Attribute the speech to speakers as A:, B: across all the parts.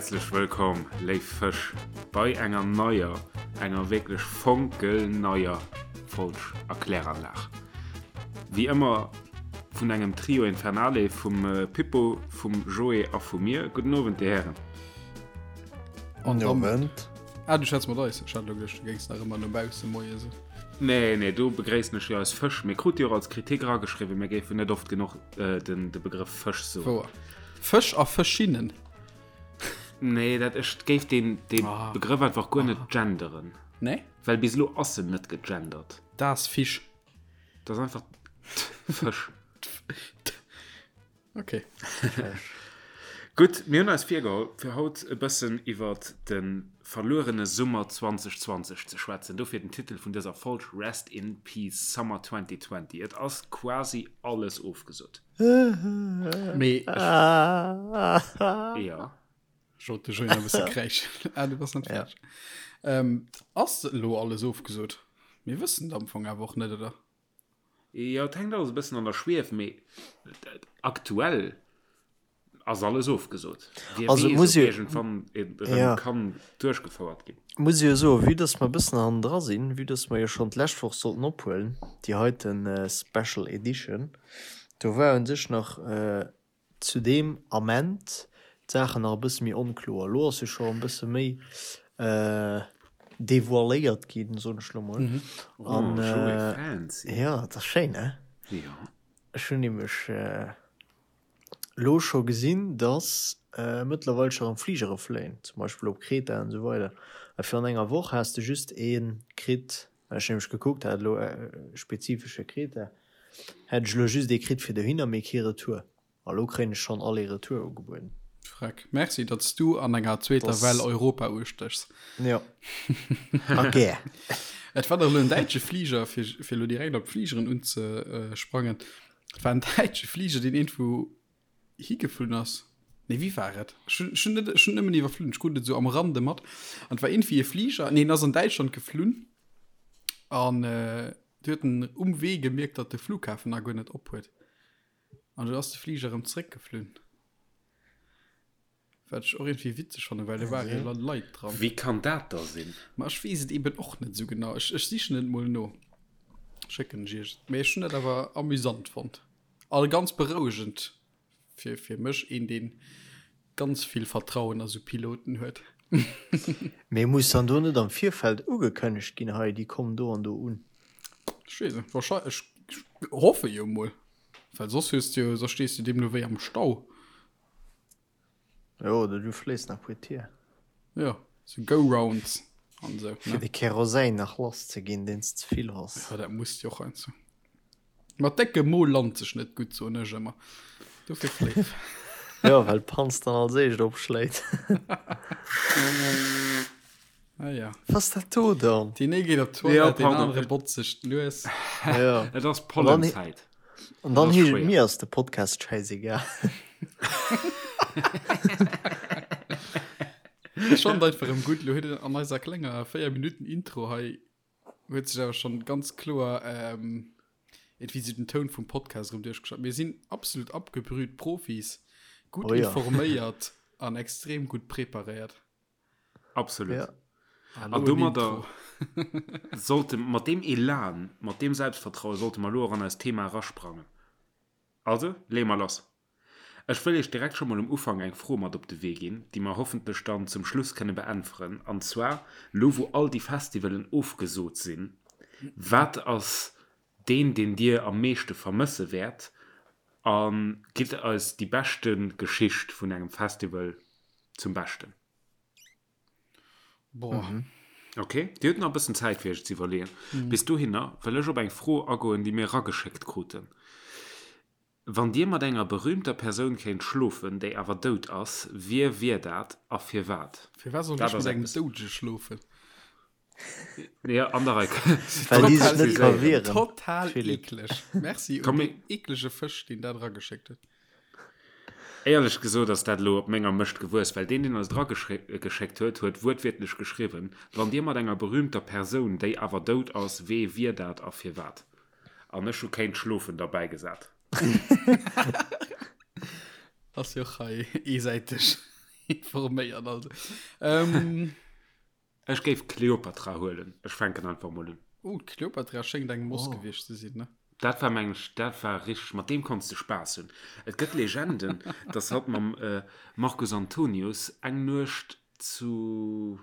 A: Häerzlech wëllkomm, léif Fësch, bei enger neier, enger wierklech fonkelneier Folg Erkläranlag. Wéi ëmmer vun engem Trio Infernale, vum Pippo, vum Joé a vu mir. Gudden Owend, Dir Hären.
B: Gudden Owend. Ah, du schwätz mat eis. Ech hat elo geduecht, du géings nach ëmmer no bausse moie soen.
A: Nee, nee, do begréissen ech jo eis Fësch. Mir krute jo och als Kritik erageschriwwen, mir géifen net oft genuch den de Begrëff Fësch soen.
B: Wouer. Fësch a Fëschinnen.
A: Nee, dat ech géif deen dee ah. Begrëff einfach guer net ah. genderen.
B: Nee?
A: Well bis elo ass en net gegendert.
B: Das Fisch.
A: Dat ass einfach Fësch.
B: Okay.
A: Gutt, mir hunn eis virgeholl, fir haut e bëssen iwwer de verluerene Summer 2020 ze schwätzen. Dofir den Titel vun dëser Folg, Rest in Peace Summer 2020. Et ass quasi alles ofgesot.
B: Mee
A: Jo.
B: Ech wollt de Joé nach e bësse kräischen. Ah, du bass net fäerdeg. Ähm, ass elo alles ofgesot? Mir wëssen et am Fong awer och net, oder?
A: Jo, et hänkt alles e bëssen an der Schwief, mee aktuell ass alles ofgesot. Wie
C: Also
A: weess,
C: muss
A: ob
C: jo,
A: iergendwann et erëm
C: ja.
A: kann duerchgefouert ginn.
C: Muss jo soen, vue dass mer e bëssen hannendra sinn, vue dass mer jo schonn d'lescht Woch sollten ophuelen, déi heiten Special Edition, do war u sech nach zu deem Ament d'Saachen nach e bësse méi onkloer. Elo ass jo scho e bësse méi devoiléiert ginn, soen ech elo mol. An
A: Oh, Joé, fancy.
C: jo, et ass schéin, ne?
A: Jo.
C: Ech hunn nämlech elo scho gesinn, dass mëttlerweil scho erëm Fligere fléien, zum Beispill op Kreta an esou weider. A virun enger Woch has de just ee kritt, well ech nämlech gekuckt hat elo spezifesch fir Kreta, Hätt ech elo just ee kritt fir dohinner, mee kee Retour. A lo kréien ech schonn Aller-Retour ugebueden.
B: Freck. Merci, datt s du an enger zweeter
C: Dass.
B: Well Europa ustéchs.
C: Jo. A gär.
B: Et war dach elo en däitsche Fliger, fir, fir elo direkt op d'Fligeren unzesprangen, et war en däitsche Fliger, deen iergendwou higeflunn ass. Nee, wéi war et? Ech hunn, ech hunn net, ech hunn nëmmen iwwerflunn, ech krut et esou am Rande mat. An et war iergendwéi e Fliger, nee, en ass an Däitschland geflunn an Du huet en um Wee gemierkt, datt de Flughafen nach guer net op huet. An du ass de Fliger erëm zréckgeflunn. Wat ech och iergendwéi witzeg fannen, well do ware jo Leit dran.
A: Wéi kann dat da sinn?
B: Ma ech weess et eben och net esou genau. Ech, ech sichen et mol no. Schécken ech iech et. Mee ech hunn dat awer amüsant fonnt. A ganz berouegend. Fir, fir mech een, deen ganz vill Vertrauen a sou Piloten huet.
C: Mee muss dann do net am Virfeld ugekënnegt ginn, hei déi kommen do an do un?
B: Ech weess net, wahrscheinlech, ech hoffe jo mol, well soss hues de jo, soss stees de deemno wéi am Stau.
C: Jo, oder du fléis nach puer Tier.
B: Jo, sou Go-Rounds an sou,
C: Fir
B: ne?
C: de Kerosin nach lass ze ginn, deen s ze vill has.
B: Jo, dat muss jo och heiansdo. Mat déckem Mo lant sech net gutt, soen ech ëmmer. Dofir fléif.
C: Jo, well d'Panz dann als éischt opschléit.
B: Ah ja.
C: Was ass dat do dann?
B: Deen ee geet op
A: Jo,
B: d'Toilette, deen
A: pardon.
B: anere botzt sech d'Nues.
C: Jo.
A: Et ass Pollenzäit.
C: An dann
A: Das
C: heescht et,
A: schwéier.
C: mir ass de Podcast schäisegal.
B: Ech fand einfach erëm gutt, lo huet en an eiser klenger 4 Minuten Intro hei huet sech awer schon ganz kloer ähm, irgendwie so den Toun vum Podcast erëm duerchgeschat. Mir sinn absolut abgebrüht Profis, gutt
C: Oh ja.
B: informéiert an extrem gutt preparéiert.
A: Absolut.
C: Ja.
A: An domadder sollte mat deem Elan, mat deem Selbstvertraue sollte mer elo och an eist Thema erasprangen. Also, leeë mer lass. Ech wëll Iech direkt scho mol um Ufank eng Fro mat op de Wee ginn, déi mer hoffentlech dann zum Schluss kënne beäntweren. An zwar, Lo wou all déi Festivalen ofgesot sinn, wat ass deen, deen Dir am meeschte vermësse wäert? A gitt eis déi beschte Geschicht vun engem Festival zum Beschten.
B: Boah.
C: Mhm.
A: Ok, Dir hutt nach e bëssen Zäit fir Iech ze iwwerleeën. Mhm. Bis dohinner wëll ech op eng Fro agoen, déi mir erageschéckt kruten. Wann Dir mat enger berühmter Persoun kéint schlofen, déi awer dout ass, wie wier dat a firwat?
B: Firwat soll
A: Dat
B: ech
A: ass
B: mat engem
A: eppes.
B: Doudege schlofen?
A: Ja, an der Rei.
C: Well déi sech
B: Total
C: net ka wieren.
B: Total
C: Philippe.
B: eekleg. Merci un
A: Komm,
B: deen eeklege Fësch, deen dat erageschéckt huet.
A: Éierlech gesot ass dat elo op menger Mëscht gewuess, well deen, deen eis et erageschéckt huet, huet wuertwiertlech geschriwwen, Wann Dir mat enger berühmter Persoun, déi awer dout ass, wee wier dat a firwat? An ech hu kéint schlofen derbäigesat.
B: Ass jo och hei eesäiteg. Informéiert also. Ähm,
A: Ech géif Kleopatra huelen. Ech fänken einfach mol un.
B: Oh, d'Kleopatra schéngt eng Moss oh. gewiescht ze sinn, ne?
A: Dat war meng ech, dat war richteg, mat deem konns de Spaass hunn. Et gëtt Legenden, dass hatt mam äh, Marcus Antonius eng Nuecht zu,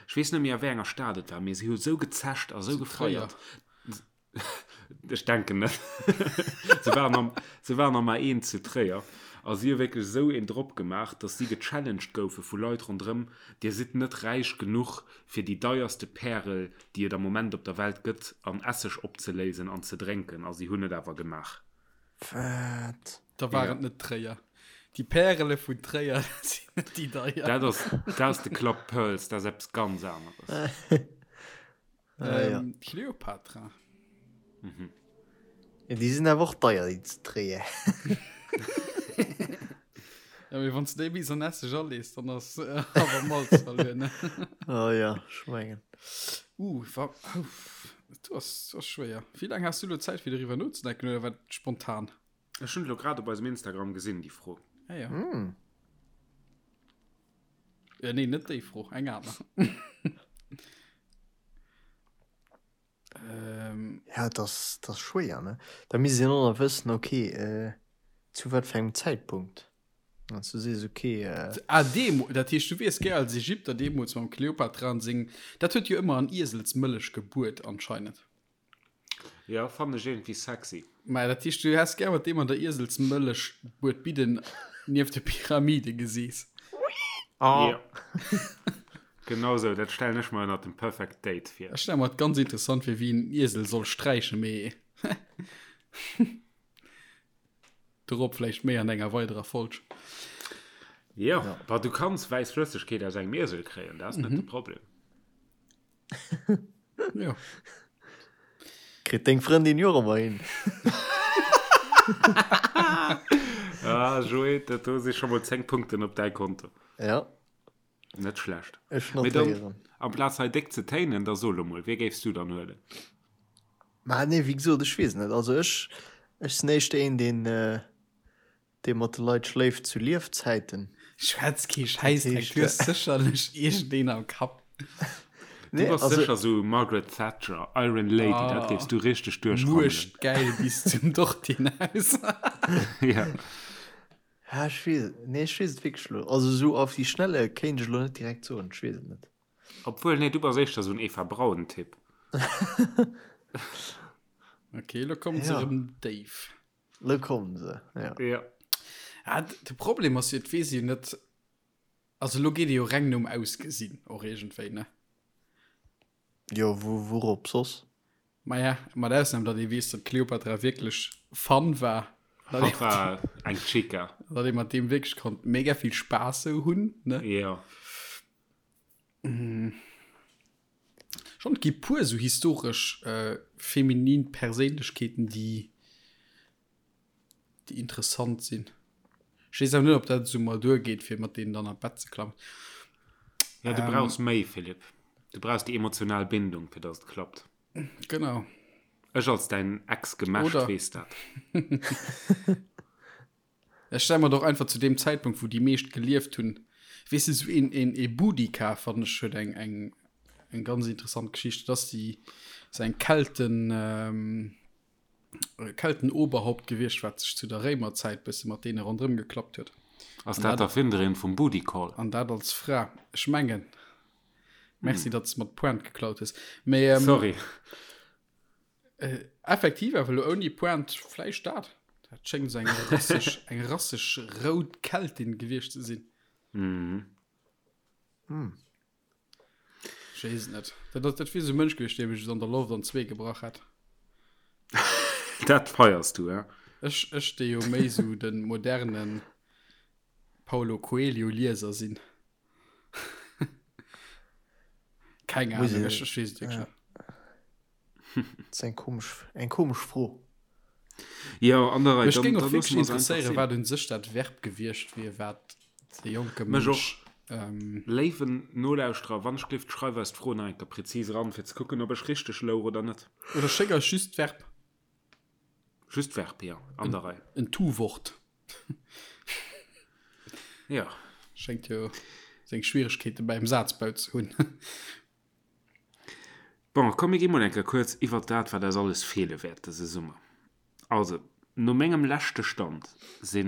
A: ech weess net méi a wéi enger Stad et war, mee si hu sou gezescht a sou gefeiert. Ech denken net. Se waren am, se waren am A1 zu Tréier a si hu wierklech esou een drop gemaach, datt si gechallenged goufe vu Leit ronderëm, Dir sidd net räich genuch, fir déi deierste Pärel, déi et am Moment op der Welt gëtt, an Esseg opzeléisen an ze drénken. A si hunn et awer gemaach.
C: Wat?
B: Da war et net Tréier. Déi Pärele vun Tréier sinn net déi deier.
A: Dat ass, dat ass de Club Pearls, dat ass eppes ganz aneres.
B: Ah, ja. Ähm, Cleopatra.
C: Mhm. Ja, déi sinn awer och deier, déi ze dréien.
B: Ja, mee wann s du déi bis an Esseg alees, dann ass äh, awer Malz verluer, ne?
C: Oh ja, ech mengen.
B: Uh, wa, uff, du ass, du ass schwéier. Wéi laang has du lo Zäit, fir doriwwer nozedenken, oder war dat spontan?
A: Ech hunn et lo grad op eisem Instagram gesinn, déi Fro.
B: Ah ja. Mm. Ja, nee, net déi Fro, eng aner.
C: ähm, ja, das, das schwéier ne da misst een och nach wëssen okay äh, zu wat fir engem Zäitpunkt an du sees okay
B: äh, ah, demo, dat heescht du wiers gär als Ägypter deemools mam Kleopatra an seng dat huet jo ëmmer an Ieselsmëllech gebuert anscheinend.
A: Ja, fannen ech iergendwéi sexy.
B: Mä dat heescht, du häss gär mat deem an der Ieselsmëllech Buedbidden nieft de Pyramide geseess.
A: Oh. Ja. Genau sou, dat stellen ech mer ënnert dem Perfect Date
B: vir. Ech stelle mer et ganz interessant vir, wéi en Iesel soll sträichen, mee dorop vläicht méi an enger weiderer Folg.
A: Jo, bah, du kanns wäiss Flëssegkeet aus engem Iesel kréien, dat ass net de Problem.
B: Ja.
C: Kritt deng Frëndin jo och ëmmer hin.
A: Ah, Joé, dat do si scho mol 10 Punkten op däi Konto.
C: Ja.
A: Net schlecht.
C: Ech Mee dann, notéieren.
A: amplaz hei déck ze téinen, da so lo mol, wie géifs du dann huelen?
C: Ma nee, wéi gesot, ech weess net. Also ech, ech sinn éischter een, deen, äh, Dee mat de Leit schléift zu Liefzäiten.
B: Schwätz kee Schäissdreck, du hues sécherlech iergendeen am Kapp.
A: Du bass sécher sou Margaret Thatcher, Iron Lady, dat géifs du richteg duerchrammelen.
B: Muechtgäil bis zum Dortinhaus.
A: Ja.
C: Ha, ech weess et, nee, ech weess et wierklech elo, also sou auf die Schnelle kéint ech elo net direkt soen, ech weess et net.
A: Obwuel, nee, du bass éischter sou en Eva Braun-Typ.
B: Ok, elo kommen se erëm déif.
C: Lo kommen se, ja.
A: Ja.
B: Ah, de Problem ass jo, et weess een jo net, also lo geet ee jo reng nom Ausgesinn och iergendwéi, ne?
C: Jo, wou, wourop soss?
B: Maja, mat Ausnam, datt ee weess, datt d'Cleopatra wierklech fun war.
A: Hatt war eng Chica.
B: Datt ee mat deem wierklech konnt mega vill Spaass sou hunn, ne?
A: Jo.
B: Schon, et gi puer sou historesch feminin Perséinlechkeeten, déi déi interessant sinn. Ech weess awer net, ob dat esou mol duergeet, fir mat deenen dann an d'Bett ze klammen.
A: Ja, du brauchs méi, Philippe. Du brauchs déi emotional Bindung, fir dass et klappt.
B: Genau.
A: Ech als däin Ex-Gemächt weess dat.
B: Ech stelle mer et och einfach zu deem Zäitpunkt, wou déi meescht gelieft hunn, weess de, esou een, een, ee Boudica, fannen ech, huet eng, eng, eng ganz interessant Geschicht. Dat ass déi, ass eng Kelten, Keltenoberhaupt gewiescht, wat sech zu der Réimerzäit bësse mat deene ronderëm geklappt huet.
A: Ass dat d'Erfinderin vum Booty Call?
B: An dat als Fra. Ech mengen. Merci, datt s de mer d'Pointe geklaut hues. Mee.
A: Sorry.
B: Äh, effektiv awer lo ouni Pointe vläicht dat. Dat schéngt sou eng rasseg, eng rasseg rout Keltin gewiescht ze sinn.
A: Mhm.
B: Hm. Ech weess et net. Dat, dat, dat wier sou e Mënsch gewiescht, dee mech an der Loft an zwee gebrach hätt.
A: Dat feiers du, hä?
B: Ech, ech dee jo méi sou de modernen Paulo Coelho Lieser sinn. Keng Ahnung, ech, ech weess et wierklech net.
C: Dat ass eng komesch, eng komesch Fro.
A: Jo, an der Rei.
B: Mech géing och wierklech interesséieren, wat un sech dat Verb gewiescht wier, wat de jonke
A: Mënsch. Mech och. Léiwen Nolauschterer, wann ech gelift, schreif eis d'Fro nach eng Kéier präzis eran, fir ze kucken, ob ech richteg louch oder net.
B: Oder schéck eis just d'Verb.
A: Just d'Verb, jo, an der Rei.
B: En Tu-Wort.
A: Jo.
B: Schéngt jo seng Schwieregkeete beim Sazbau ze hunn.
A: Bon, komm mir gi mol eng Kéier kuerz iwwert dat, wat eis alles feele wäert dëse Summer. Also, no mengem leschte Stand si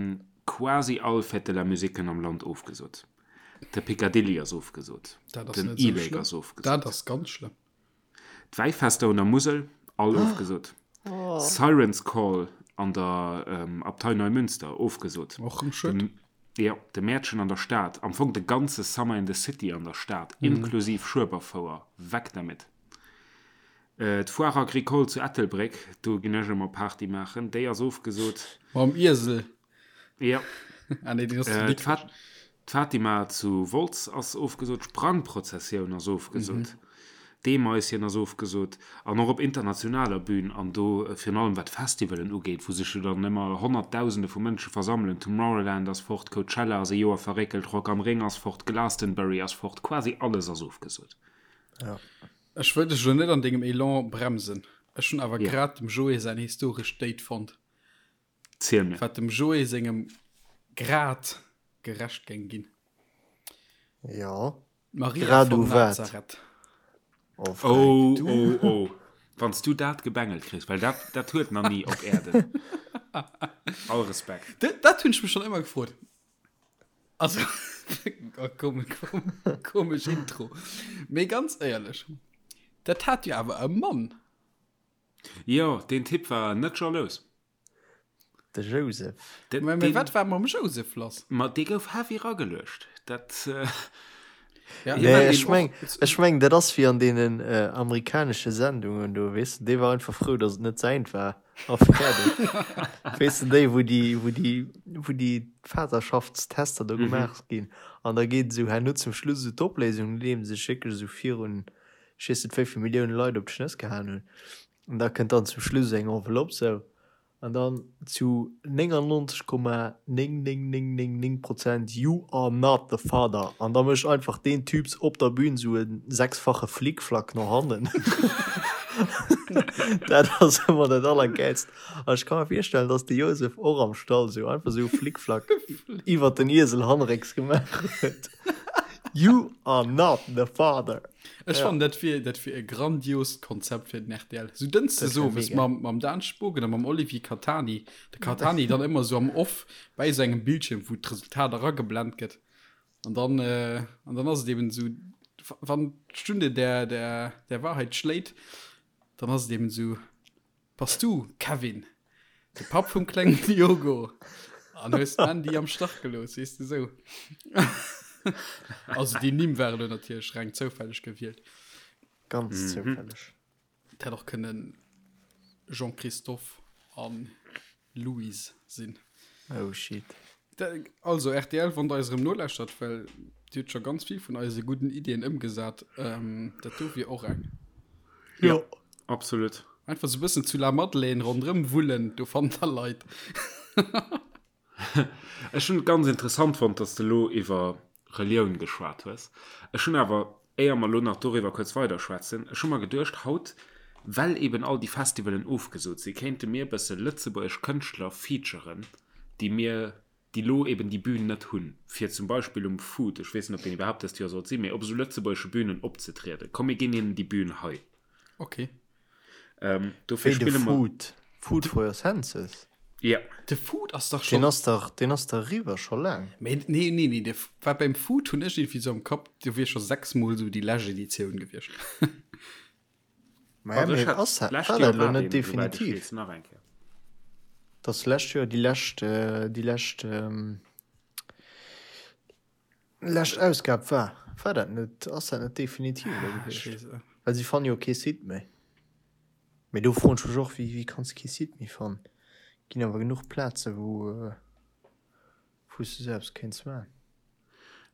A: quasi all Fête de la Musiquen am Land ofgesot. De Picadilly ass ofgesot,
B: Dat ass
A: den
B: net esou
A: E-Lake
B: schlëmm.
A: ass ofgesot.
B: Dat ass ganz schlëmm.
A: D'Wäifester un der Musel, all ofgesot. Siren's Call an der Abtei Neumünster, ofgesot.
B: Och rëm schued.
A: Jo, de Mäertchen an der Stad, am Fong de ganze Summer in the City an der Stad, inklusiv Schueberfouer, weg damit. D'Foire Agricole zu Ettelbréck, do ginn ech ëmmer Party maachen, déi ass ofgesot.
B: Mam Iesel.
A: Jo.
B: Ah nee, deen ass zu Dikrech.
A: D'Fatima zu Wolz ass ofgesot, d'Sprangprozessioun ass ofgesot, d'Eemaischen ass ofgesot an och op internationaler Bühn an do virun allem wat d'Festivalen ugeet, wou sech jo dann ëmmer Honnertdausende vu Mënsche versammelen, Tomorrowland ass fort, Coachella ass e Joer verréckelt, Rock am Ring ass fort, Glastonbury ass fort, quasi alles ass ofgesot.
B: Ech wëll dech elo net an dengem Elan bremsen, ech hunn awer grad dem Joé säin historescht Date fonnt.
A: Ziel mir.
B: Wat dem Joé sengem Grad gerecht géing ginn.
C: Jo.
B: Maria
C: Grad
B: von
C: u wat?
B: Nazareth.
C: Oh, Fränk,
A: Oh,
C: du.
A: oh, oh. Wann s du dat gebengelt kriss, well dat, dat huet nach ni op Äerden. All Respekt.
B: Dat, dat hunn ech mech schonn ëmmer gefrot. Also, oh, kom, kom, komesch Intro. Mee ganz éierlech, dat hat jo awer e Mann.
A: Jo, deen Typ war net jalous.
C: De Joseph.
A: De,
B: Mä, mä
A: deen,
B: wat war mam Joseph lass?
A: ma dee gouf heavy rageluecht. Dat, äh,
B: Ja,
A: Hie
C: Nee,
A: war
C: ech
A: deen
C: meng,
A: och.
C: ech meng, dat ass wéi an deenen äh, amerikanesche Sendungen do, weess de, dee war einfach frou, datt et net säint war a fäerdeg. Weess de, déi, wou déi, wou déi, wou déi Vaterschaftstester do gemaach ginn an da geet esou herno zum Schluss esou d'Opléisung, nodeem se sech wierklech esou virun, ech weess net wéi vill Millioune Leit op d'Schnëss gehaen hunn. An da kënnt dann zum Schluss eng Enveloppe sou, an dann zu 99,99999 Prozent You are not the father. An da mécht einfach deen Typs op der Bühn sou e sechsfache Flickflack no hannen. Dat ass ëmmer dat Allergäilst. An ech ka mer virstellen, dass de Josef och am Stall sou einfach sou e Flickflack iwwert den Iesel hannerécks gemaach huet. You are not the father.
B: Ech
C: Ja.
B: fannen, dat wier, dat wier e grandiost Konzept fir den RTL. Sou Dënschdes
C: Dat wär
B: owes
C: mega.
B: mam, mam Dan Spogen a mam Olivier Catani. De Catani dann ëmmer sou am Off bäi sou engem Bildschierm, wou d'Resultat erageblent gëtt. An dann, äh, an dann ass et eben sou, wann d'Stunde der, der, der Wahrheit schléit, dann ass et eben sou, Bass du, Kevin, de Papp vum klengen Diogo an hues d'Mandy am Stach gelooss, weess de sou. Also déi Nimm ware lo natierlech reng zoufälleg gewielt.
C: Ganz zoufälleg.
B: Et hätt och kënnen Jean-Christophe an Louise sinn.
C: Oh shit.
B: Also RTL, wann der eis erëm nolauschtert, well Dir hutt scho ganz vill vun eise gudden Iddien ëmgesat, ähm, dat do wier och eng.
A: Jo, absolut.
B: Einfach sou e bëssen zu La Madeleine ronderëm wullen, do fannt der Leit.
A: Ech hunn et ganz interessant fonnt, dass de lo iwwer Relioun geschwat hues. Ech hunn awer, éier mer lo nach doriwwer kuerz weiderschwätzen, ech hu mer geduecht, haut, well eben all déi Festivalen ofgesot sinn, kéinte mir e bësse lëtzebuergesch Kënschtler featuren, déi mir, déi lo eben déi Bühn net hunn, fir zum Beispill um Food, ech weess net, ob deen iwwerhaapt dëst Joer sollt sinn, mee op esou lëtzebuergesche Bühnen opzetrieden. Komm, mir ginn hinnen déi Bühn hei.
B: Okay.
A: Ähm, dofir
C: Wéi de
A: spille mer.
C: Food, Food for your senses.
A: Ja.
B: De Food ass dach
C: Deen
B: schon.
C: ass dach, deen ass dach eriwwer scho laang.
B: Mee nee, nee, nee, de, war beim Food hunn ech irgendwie sou am Kapp, do wier scho sechsmol sou déi lescht Editioun gewiescht.
C: Ma ja,
A: Also ech
C: mee
A: hat
C: ass dat,
A: d'lescht
C: war
A: Joer
C: dat elo
A: war
C: net
A: deen, souwäit ech
C: definitiv?
A: weess, nach eng Kéier.
C: Dass d'lescht Joer déi lescht, déi lescht, lescht Ausgab war. War dat net, ass dat net definitiv elo
B: Ech
C: gewiescht?
B: weess et.
C: Well si fanne jo kee Site méi. Mee do froen ech mech och, wéi, wéi kanns de kee Site méi fannen? Ginn awer genuch Plaze wou, wou s de sou eppes kéints man.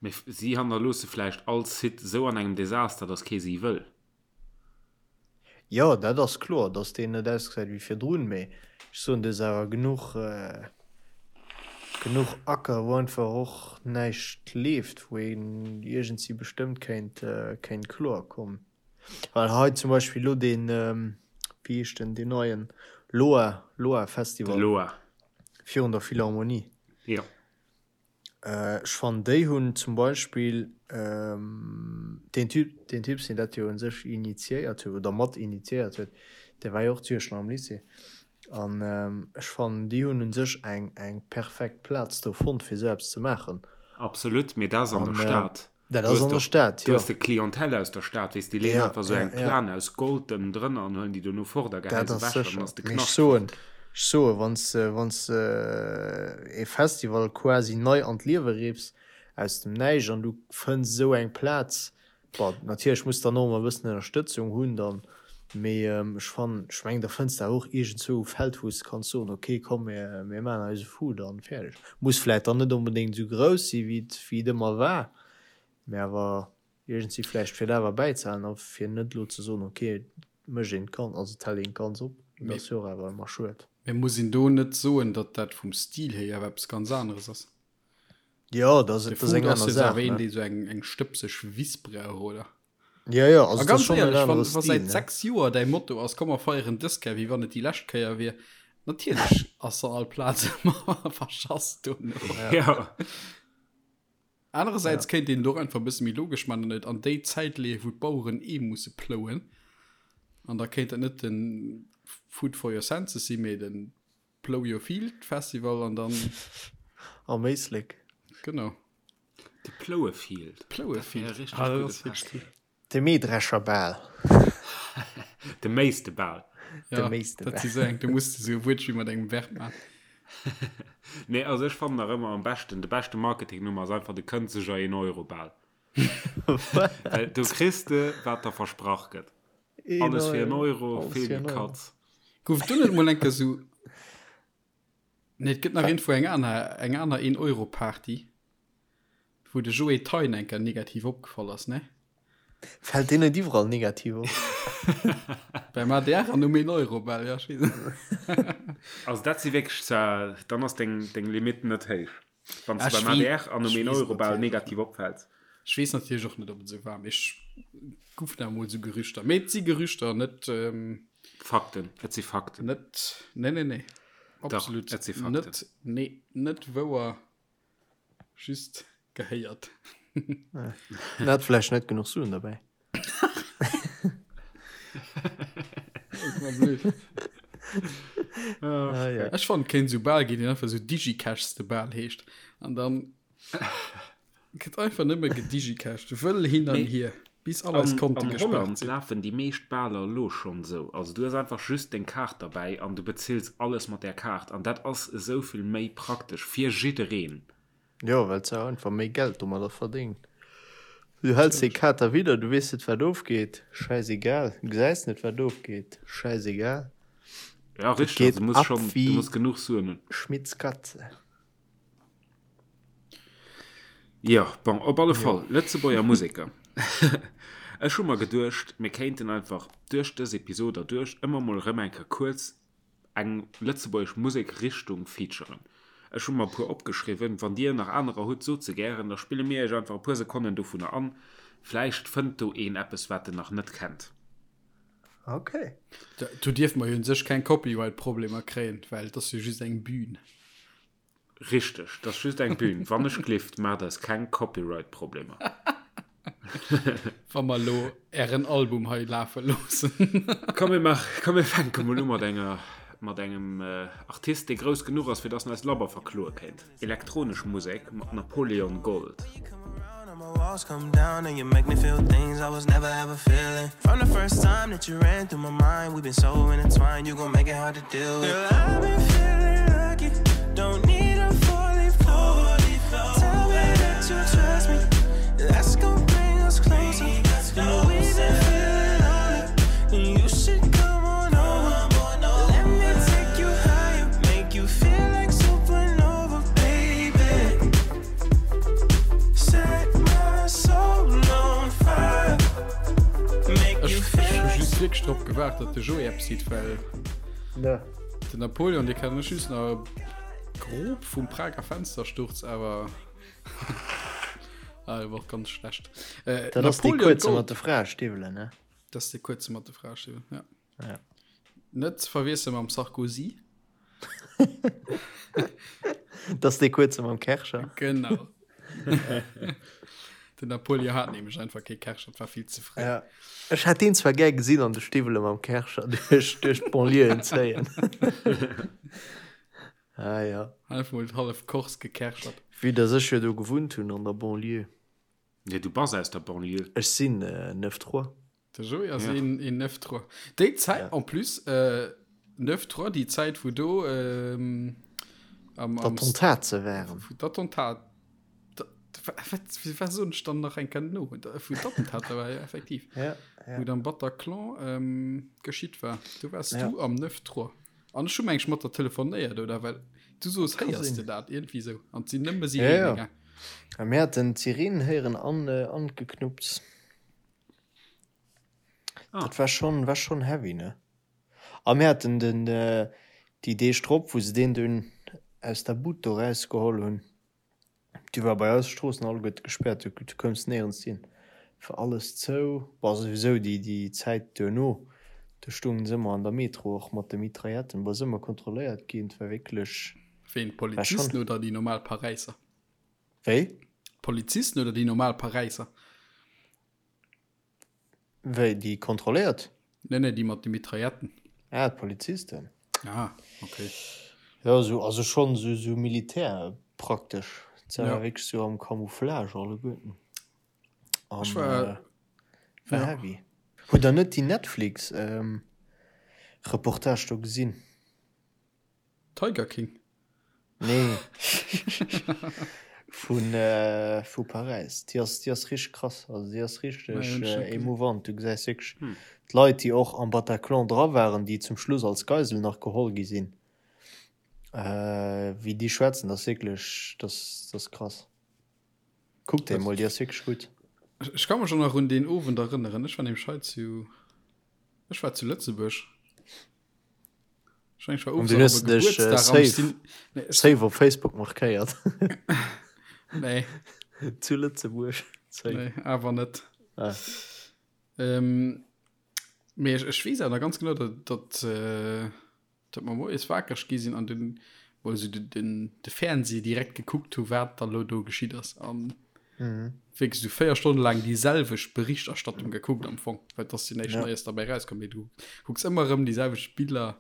A: Mee si hannerloosse vläicht all Site sou an engem Desaster, dass kee si wëll.
C: Jo, dat ass kloer, dass deen net ausgesäit wéi virdrun, mee ech soen, do ass awer genuch, genuch Acker, wou einfach och näischt leeft, wou een iergendsi bestëmmt kéint, kéint kloer kommen. Well hei zum Beispill elo deen, wéi heescht den, deen neien Loa, Loa
A: De
C: Festival
A: Loa.
C: virun der Philharmonie.
A: Jo.
C: Ech fannen déi hunn zum Beispill deen Typ, deen Typ deen dat jo un sech initiéiert huet oder mat initiéiert huet, dee war jo och zu Iechternach am Lycée an ech fannen déi hunn un sech eng eng perfekt Plaz do fonnt fir esou eppes ze maachen.
A: Absolut, mee dat ass an der Stad.
C: Dat ass an der Stad,
A: jo. Du hues de Clientèle aus der Stad, weess, déi leeën einfach esou eng Plane aus Gold ënnendrënner an huelen déi dono fort a
C: geheien se ewech an dann ass de Knascht fort. Ech soen, wann s de, wann s de e Festival quasi nei an d'Liewe riffs, aus dem Näischt, an du fënns esou eng Plaz, bon, natierlech muss dann och ëmmer e bëssen Ënnerstëtzung hunn dann, mee ech fannen, ech mengen, da fënns de awer och iergendzwou e Feld, wou s de kanns soen, ok, komm, mir, mir maachen eise Food an fäerdeg. Muss vläit dann net onbedéngt esou grouss si wéi et wéi et ëmmer war, mä awer iergendwéi vläicht fir et awer bäizehalen a fir net elo ze soen, ok et mécht een d'Gan, also et hält een d'Ganz op. Dat ass jo och awer ëmmer schued.
B: Mä muss een do net soen, datt dat vum Stil hier awer eppes ganz aneres ass?
C: Jo, dat ass,
B: De
C: dat ass
B: Food
C: eng
B: ass
C: aner
B: jo
C: Saach,
B: awer een,
C: ne?
B: dee sou eng, eng stëbseg Wiss brauch, oder?
C: Jo, jo, also
B: A
C: et ass
B: ganz
C: schonn en
B: éierlech, wann,
C: anere
B: wa
C: Stil,
B: säit
C: ne?
B: 6 Joer däi Motto ass, komm mer feieren dës Kéier, wéi wann et déi lescht Kéier wier, natierlech ass dann all Plaz ëmmer verschass dono.
A: Ja.
B: Anerersäits kéint een et och einfach e bësse méi logesch man an et an déi Zäit leeën, wou d'Baueren ee musse plouen. An da kéint dat net de Food for your senses sinn, mee de Plow your field Festival an dann.
C: Am Éislek.
B: Genau.
A: De Plouefield.
B: Plouefield. Ah, dat ass wierklech cool.
C: De Mähdrescherbal.
A: De Méistebal.
B: Ja,
C: De Méistebal.
B: Dat si sou eng, do muss de sou e Wuertspill mat engem Verb man.
A: Nee, also ech fannen nach ëmmer am beschten, de beschte Marketingnummer ass einfach de Kënzeger een Euro Bal. Well do kriss de, wat der versprach gëtt. Alles fir en Euro,
C: Alles fir
A: vill
C: en Euro.
A: Katz.
B: Gouf do net mol eng Kéier sou. Nee, et gëtt nach iergendwou eng aner, eng aner Een-Euro-Party, wou de Joé Thein eng Kéier negativ opgefall ass, ne?
C: Fält deen net iwwerall negativ op?
B: Beim ADR an um Een-Euro-Bal, ja, ech weess net.
A: Also dat si wierklech zwar, dann ass deng, deng Limite net héich, wann s
B: Ah,
A: de
B: ech
A: beim
B: wee-
A: ADR an um
B: ech weess
A: Een-Euro-Bal
B: natierlech
A: negativ opfäls.
B: Ech weess natierlech och net, ob et esou war, mee ech goufen awer mol esou Gerüchter. Mee et si Gerüchter, net, ähm,
A: Fakten, et si Fakten.
B: net, nee, nee, nee. Absolut
A: Dach, et si Fakten.
B: net, nee, net wouer, just gehéiert.
C: En hat vläicht net genuch Suen derbäi.
B: Ah, ja. Ech fand kéint sou Bal ginn, deen einfach sou Digicash de Bal heescht. An dann Gëtt einfach nëmme gedigicashed, wëll hin an hier, bis all eis Konte
A: An
B: gespaart
A: Holland
B: sinn.
A: lafen déi meescht Baler elo schonn esou. Also du hues einfach just deng Kaart derbäi an du bezills alles mat där Kaart. An dat ass esou vill méi praktesch fir jiddereen.
C: Jo, well s de einfach méi Geld domadder verdéngt. Du häls déi Kaart da widder, du weess net wat ofgeet, schäisegal. Du gesäis net wat ofgeet, schäisegal.
A: Ja,
C: Et
A: richteg,
C: geet
A: also du muss
C: ab
A: schonn, du
C: wéi
A: muss genuch Suen hunn.
C: Schmitz Katze.
A: Jo, bon, op alle Fall, Lëtzebuerger Museker. Ech hu mer geduecht, mir kéinten einfach duerch dës Episod erduerch ëmmer mol erëm eng Kéier kuerz eng lëtzebuergesch Musekrichtung featuren. Ech hu mer e puer opgeschriwwen. Wann Dir nach anerer hutt, sot se gären, da spille mir Iech einfach e puer Sekonnen dovunner an. Vläicht fënnt do een eppes, wat en nach net kennt.
C: Ok.
B: Do dierfe mer jo un sech keng Copyright-Problemer kréien, well et ass jo just eng Bühn.
A: Richteg, dat ass just eng Bühn. Wann ech glift, maacht eis keng Copyright-Problemer.
B: Wa mer elo ären Album hei lafe loossen.
A: Komm, mir maach, komm, mir fänke mol u mat enger, mat engem Artist, dee grouss genuch ass, fir dass en eis labber verkloe kéint. Elektronesch Musek mat Napoleon Gold.
B: Ech hu just wierklech drop gewaart, datt de Joé eppes seet, well den Napoleon, dee kennen ech just nach grob vum Prager Fenstersturz, awer ah, war och ganz schlecht.
C: Äh, Dat ass dee kuerze mat de Fraestiwwelen, ne?
B: Dat ass dee kuerze mat de Fraestiwwelen, ja.
C: Ja.
B: Net ze verwiessele mam Sarkozy.
C: Dat ass dee kuerze mam Kärcher.
B: Genau. Den Napoleon hat nämlech einfach kee Kärcher, et war vill ze fréi.
C: Ja. Ech hätt deen zwar gär gesinn an de Stiwwele mam Kärcher duerch, duerch d'Banlieuen zéien. Ah ja.
B: Einfach mol hallef Corse gekärchert.
C: Vue dass ech jo do gewunnt hunn an der Banlieue.
A: Nee, du bass aus der Banlieue.
C: Ech sinn Neuf Trois.
B: De Joé ass een, een Neuf Trois. Déi Zäit, en plus, Neuf Trois, déi Zäit wou do am,
C: am. D'Attentate waren.
B: Wou d'Attentat, wat, wat soen ech dann nach eng Kéier no? Wou d'Attentater war, jo, effektiv.
C: Ja, ja.
B: Wou et am Bataclan geschitt war. Do waars du am Neuf Trois. An ech hu meng ech mat der telefonéiert, oder? Well du soos, héiers de dat? Iergendwéi esou. An et sinn nëmme
C: Sireenen gaang. Ja, mir haten d'Sirenen héieren an, an d'Geknupps. Ah. Dat war schon, war schon heavy, ne? A mir haten den, déi Deeg drop, wou se deen dunn aus der Bud do rausgeholl hunn, Du war bei eis Stroossen alleguerte gespäert, du koums néierens hin, war alles zou. Bon, souwisou déi déi Zäit duerno, do stoungen se ëmmer an der Metro och mat de Mitrailletten, bon, ass ëmmer kontrolléiert ginn, et war wierklech.
B: Ween, d'Polizisten oder déi normal Paräisser?
C: Wéi?
B: D'Polizisten oder déi normal Paräisser?
C: Wéi, déi kontrolléiert?
B: Nee, nee, déi mat de Mitrailletten.
C: Ah, d'Polizisten.
B: Ah, okay.
C: Jo, esou, also schonn esou, esou Militär praktesch. Se war wierklech esou am Camouflage alleguerten.
B: An, Ech war,
C: war ja. heavy. Hutt der net déi Netflix, Reportage do gesinn?
B: Tiger King?
C: Nee. Vun vu Paräis. Déi ass, déi ass richteg krass. Also déi ass richteg émouvant. Du gesäis wierklech d'Leit, déi och am Bataclan dra waren, déi zum Schluss als Geisel nach geholl gi sinn, wéi déi schwätzen, dat ass wierklech, dat ass krass. Kuck déi emol, déi ass wierklech gutt.
B: Ech ka mech och nach un deen Owend erënneren. Ech war nämlech hei zu, ech war zu Lëtzebuerg.
C: An du hues dech äh, safe, nee, safe op Facebook markéiert.
B: nee.
C: Zu Lëtzebuerg.
B: Nee, awer net. Ah. Ähm, mee ech, ech weess awer ganz genau, dat, dat, äh, dat mer moies wakereg gi sinn an den, wou se den, den, de Fernseh direkt gekuckt hu, wat da lo do geschitt ass. An
C: mhm.
B: wierklech sou 4 Stonne laang déi selwecht Berichterstattung gekuckt am Fong, well dass jo näischt ja. Neies dabei rauskomm. Mee du kucks ëmmer erëm déi selwecht Biller.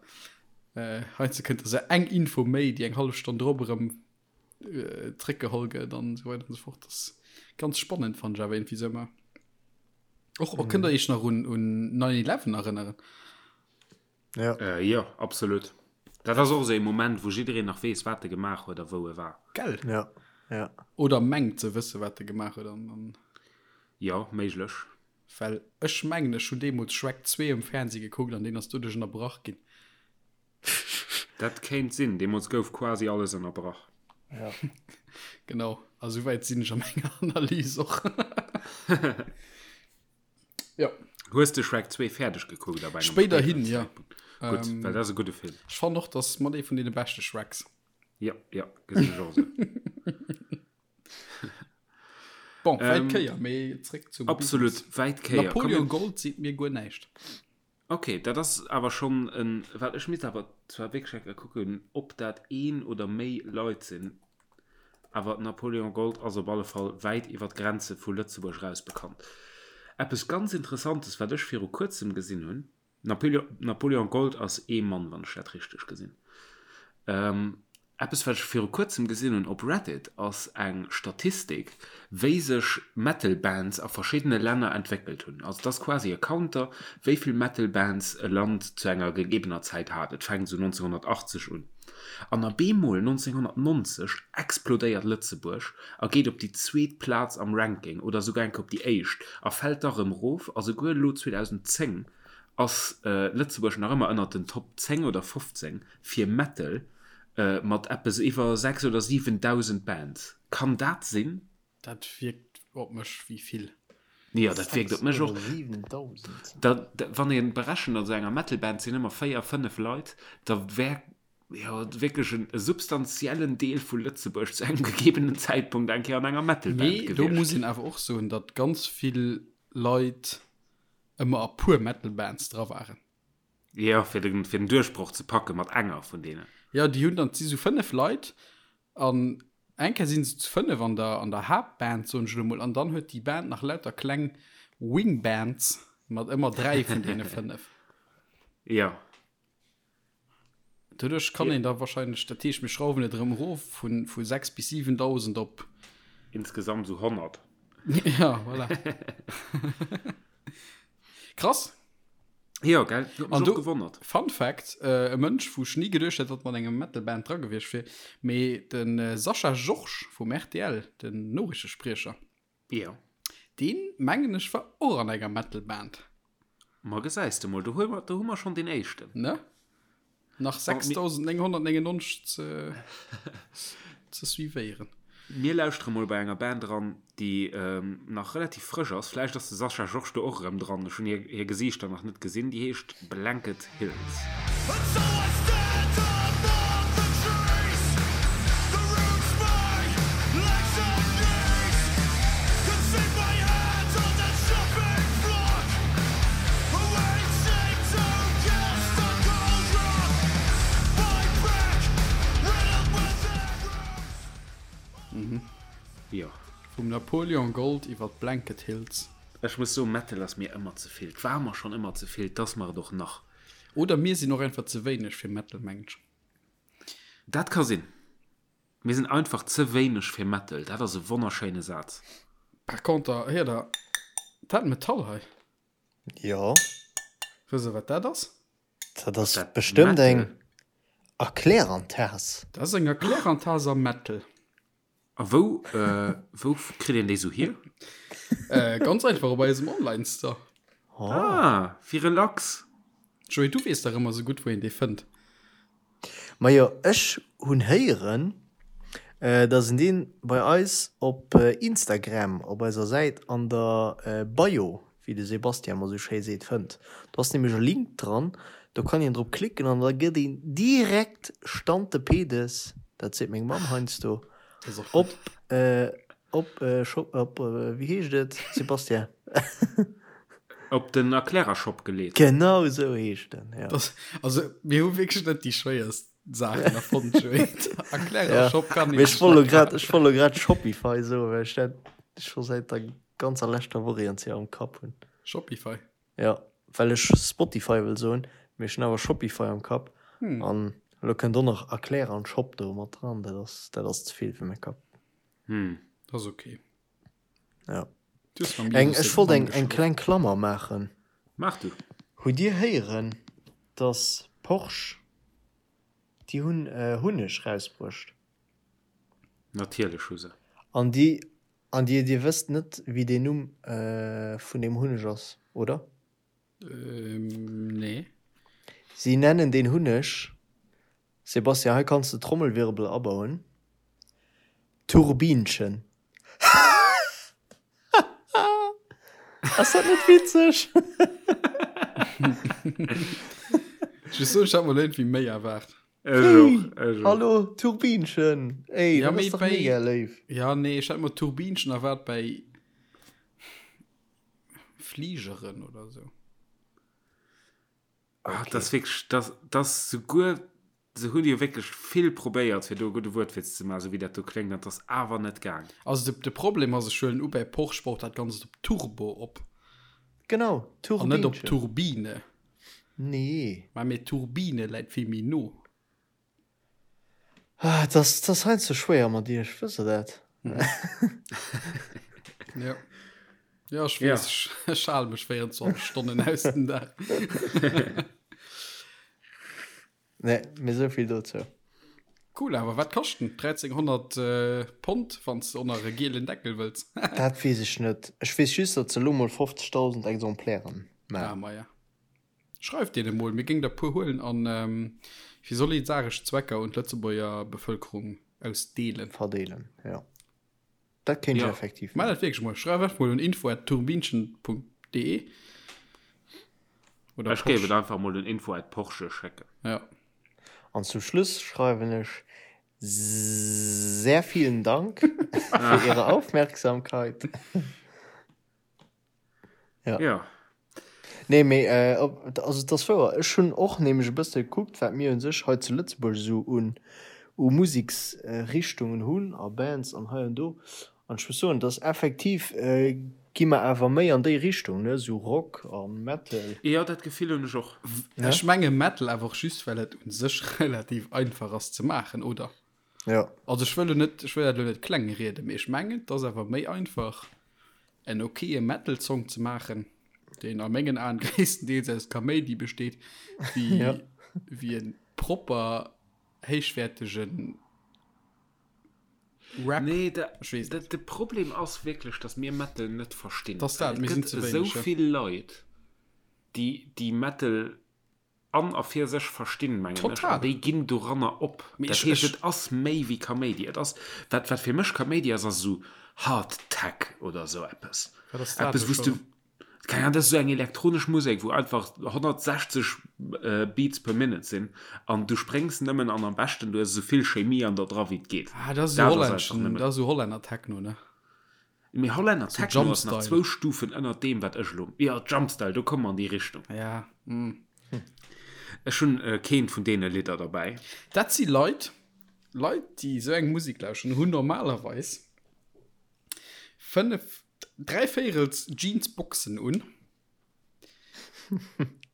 B: Äh, heiansdo kënnt da sou eng Info méi, déi eng hallef Stonn drop erëm äh, zréckgeholl gëtt an esou weider an esou fort. Das ass ganz spannend, fand ech awer irgendwie sou ëmmer. Och, och mhm. kënnt der iech nach un, un 9-11 erënneren?
C: Ja.
A: Äh, jo, absolut. Dat ass och esou ee Moment, wou jiddereen nach weess, wat e gemaach huet a wou e war.
B: Gell?
C: Ja, ja.
B: Oder mengt ze wësse, wat e gemaach huet an, an.
A: Jo, méiglech.
B: Well ech mengen, ech hunn deemools Shrek 2 um Fernseh gekuckt an deen ass doduerch ënnerbrach ginn.
A: Dat kéint sinn. Deemools gouf quasi alles ënnerbrach.
C: Ja.
B: Genau. A souwäit sinn ech a menger Analys och. Ja.
A: Hues de Shrek 2 fäerdeg gekuckt
B: ab engem Spéiderhin, ja.
A: Gutt, ähm, well dat ass e gudde Film.
B: Ech fannen och, dass mat ee vun deene beschte Shreks.
A: Ja, ja, gesinn ech och esou.
B: Bon, wäit ähm, Kéier, mee zréck
A: zum Absolut,
B: Business.
A: wäit Kéier.
B: Napoleon Gold seet mir guer näischt.
A: Ok, dat ass awer schonn en, well ech misst awer zwar wierklech eng Kéier kucken, ob dat een oder méi Leit sinn, awer Napoléon Gold ass op alle Fall wäit iwwer d'Grenze vu Lëtzebuerg eraus bekannt. Eppes ganz Interessantes, wat ech viru kuerzem gesinn hunn, Napoléon Gold ass ee Mann, wann ech dat richteg gesinn. Eppes wat ech viru kuerzem gesinn hunn op Reddit ass eng Statistik wéi sech Metal Bands a verschiddene Länner entwéckelt hunn. Also et ass quasi e Counter wéi vill Metal Bands e Land zu enger gegebener Zäit hat. Et fänkt esou 1980 un an a bemol 1990 explodéiert Lëtzebuerg a geet op déi zweet Plaz am Ranking oder souguer eng Kéier op déi éischt a fält da rëm erof a souguer elo 2010 ass Lëtzebuerg nach ëmmer ënnert den Top 10 oder 15 fir Metal mat eppes iwwer 6 oder 7.000 Bands. Kann dat sinn?
B: Dat wierkt op mech wéi vill.
A: Jo, dat wierkt op mech och. Da, wann ee berechent, an esou enger Metal-Band sinn ëmmer 4, 5 Leit, da wär jo wierklech e substantiellen Deel vu Lëtzebuerg zu engem gegebenen Zäitpunkt eng Kéier an enger Metal-Band
B: gewiescht. Mee do muss een awer och soen, datt ganz vill Leit ëmmer a puer Metal Bands dra waren.
A: Jo, fir den, fir den Duerchbroch ze packe mat enger vun deenen.
B: Jo, déi hunn dann, et si sou 5 Leit an. Eng Kéier sinn se zu 5 an der, an der Haaptband, soen ech elo mol, an dann huet déi Band nach lauter kleng Wingbands mat ëmmer 3 vun deene 5.
A: Ja.
B: Doduerch kann een da wahrscheinlech, dat heescht mir schrauwen et erëm erof vu, vu 6 bis 7.000 op.
A: Insgesamt esou 100.
B: Ja, voilà. Krass.
A: Jo, gell? Huet mech
B: An
A: och
B: du,
A: gewonnert.
B: Fun Fact, äh, e Mënsch, wou ech ni geduecht hätt, datt mat engem Metal-Band dra gewiescht wier, mee den äh, Sascha Georges vum rtl, den Noriichtespriecher,
A: Jo.
B: deen, mengen ech, war och an enger Metal-Band.
A: Ma gesäis de mol, do hu mer, do hu mer schonn deen éischten.
B: Ne? Nach 6999 ze, ze suivéieren.
A: Mir lauschtere mol bei enger Band eran, déi nach relativ frësch ass. Vläicht ass de Sascha Georges do och erëm dran. Ech hunn hir, hir Gesiichter nach net gesinn. Déi heescht Blanket Hills. Jo.
B: Vum Napoleon Gold iwwer d'Blanket Hills.
A: Ech muss soen, Metal ass mir ëmmer ze vill. 't war mer schonn ëmmer ze vill, 't ass mer et och nach.
B: Oder mir sinn och einfach ze wéineg fir Metal, mengen ech.
A: Dat ka sinn. Mir sinn einfach ze wéineg fir Metal. Dat ass e wonnerschéine Saz.
B: Par conter, héiert der dat Metall hei?
C: Jo.
B: Wësst der, wat dat ass?
C: Dat ass bestëmmt eng Erklärantas.
B: Dat ass eng Erklärantas am Metal.
A: A wou, wou kritt een déi sou hier?
B: Ganz einfach op eisem Online-Store.
A: Ah, wéi relax.
B: Joé, du weess dach ëmmer sou gutt, wou een déi fënnt.
C: Majo, ech hunn héieren, dass een deen bei eis op Instagram op eiser Säit an der Bio, wéi de Sebastian emmer sou schéi seet, fënnt. Do ass nämlech e Link dran, do kann een drop klicken an da gëtt een direkt stante pedes, dat seet meng Mamm heiansdo, op op Shop, op wéi heescht et, Sebastian?
A: Op den Erklärershop geleet.
C: Genau esou heescht en,
B: jo. Das, also mir hu wierklech net déi schwéierst Saachen erfonnt, Joé. Erklärershop kann
C: een. Mee ech wollt lo grad, ech wollt lo grad Shopify soen, well ech dat scho säit der ganzer leschter Woch iergendwéi am Kapp hunn.
B: Shopify?
C: Jo, well ech Spotify wëll soen, mee ech hunn awer Shopify am Kapp. An elo kënnt och nach Erklärer an Shop do mat dran, dat ass, dat ass ze vill fir mäi Kapp.
A: Hm.
B: Dat ass ok.
C: Ja. Eng, ech wollt eng, eng kleng Klammer maachen.
A: Maach du.
C: Hutt Dir héieren, dass Porsche, déi hunn Hunneg rausbruecht?
A: Natierlech hu se.
C: An déi, an Dir, Dir wësst net, wéi deen Numm vun deem Hunneg ass, oder?
B: Nee.
C: Si nennen deen Hunneg, Sebastian, hei kanns de Trommelwirbel abauen, Turbinchen. Ass dat net witzeg?
B: Ech muss soen, ech hat mer iergendwéi méi erwaart.
A: Ech och, ech och.
C: Hallo, Turbinchen! Ey,
B: Ja,
C: dat
B: mee
C: ass dach
B: bei-
C: mega léif.
B: Ja, nee, ech hat mer Turbinchen erwaart bei Fligeren oder sou.
A: Ah, okay. Das wirklich, das, das souguer se hunn jo wierklech vill probéiert fir do e gudde Wuertwitz ze maachen, sou wéi dat do kléngt, an 't ass awer net gaang.
B: Also de, de Problem ass, ech huelen u bei Porsche baut dat Ganzt op Turbo op.
C: Genau,
B: An net op Turbine.
C: Nee.
B: Mä mee Turbine läit vill méi no.
C: Ah, das, das ass heiansdo schwéier mat iech, wësst der dat?
B: Ja. Ja, ech weess, ja. ech hale mech 24 Stonnen aus den Dag.
C: Nee, mee esou vill dozou.
B: Cool, awer wat kascht den? 1300 äh, Pond, wann s de och nach e gielen Deckel wëlls.
C: Dat weess ech net. Ech weess just, datt se elo mol 50.000 Exemplairen
B: maachen. Ah, ma ja. Schreift deene mol, mir géing der puer huelen an fir solidaresch Zwecker un d'Lëtzebuerger Bevëlkerung ausdeelen.
C: Verdeelen, jo. Dat kéint ech effektiv
B: maachen. Maach dat wierklech mol. Schreif einfach mol un info at turbinchen.de
A: oder Ech géif et einfach mol un info at Porsche schécken.
B: Ja.
C: An zum Schluss schreiwen ech sehr vielen Dank für Ihre Aufmerksamkeit. Ja.
A: Ja.
C: Nee, mee äh, op, also et ass wouer. Ech hunn och nämlech e bësse gekuckt, wat mir u sech hei zu Lëtzebuerg esou un, U Museksrichtungen hunn a Bands an hei an do. An ech muss soen, dass effektiv gi mer awer méi an déi Richtung, ne, sou Rock a Metal.
A: Jo, dat Gefill hunn ech och.
B: Ech menge Metal awer och just, well et u sech relativ einfach ass ze maachen, oder?
C: Jo.
B: Also ech wëll lo net, ech wëll dat lo net kleng rieden, mee ech mengen, et ass awer méi einfach en okaye Metal-Song ze maachen, deen a mengen Aen gréisstendeels aus Kaméidi besteet, wéi wéi e propper héichwäertegen
A: Rap. Nee, de, de, de Problem ass wierklech, dass mir Metal net verstinn.
B: Das dat, mir sinn ze
A: wéineg. Esou vill Leit, déi, déi Metal an a fir sech verstinn, mengen ech, an déi ginn doranner op. Mee dat heescht, et ass méi wéi Kaméidi. Et ass, wat, wat fir mech Kaméidi ass, ass esou Hard Tech oder esou eppes.
B: Wat ass dat
A: Eppes, wou s du. Keng Ahnung, dat ass esou eng elektronesch Musek, wou einfach 160 Beats per Minute sinn an du spréngs nëmmen an am beschten du hues esou vill Chemie an der dra wéi et geet.
B: Ah, dat ass esou hollänneschen, dat ass esou Hollänner Techno, ne?
A: Mee Hollänner Techno ass nach zwou Stufen ënnert deem, wat ech elo, jo, Jumpstyle, do komme mer an déi Richtung.
B: Ja, mm.
A: Ech hunn keent vun deene Lidder derbäi.
B: Dat si Leit, Leit, déi esou eng Musek lauschteren, hunn normalerweis 5, dräivéierels Jeansboxen un,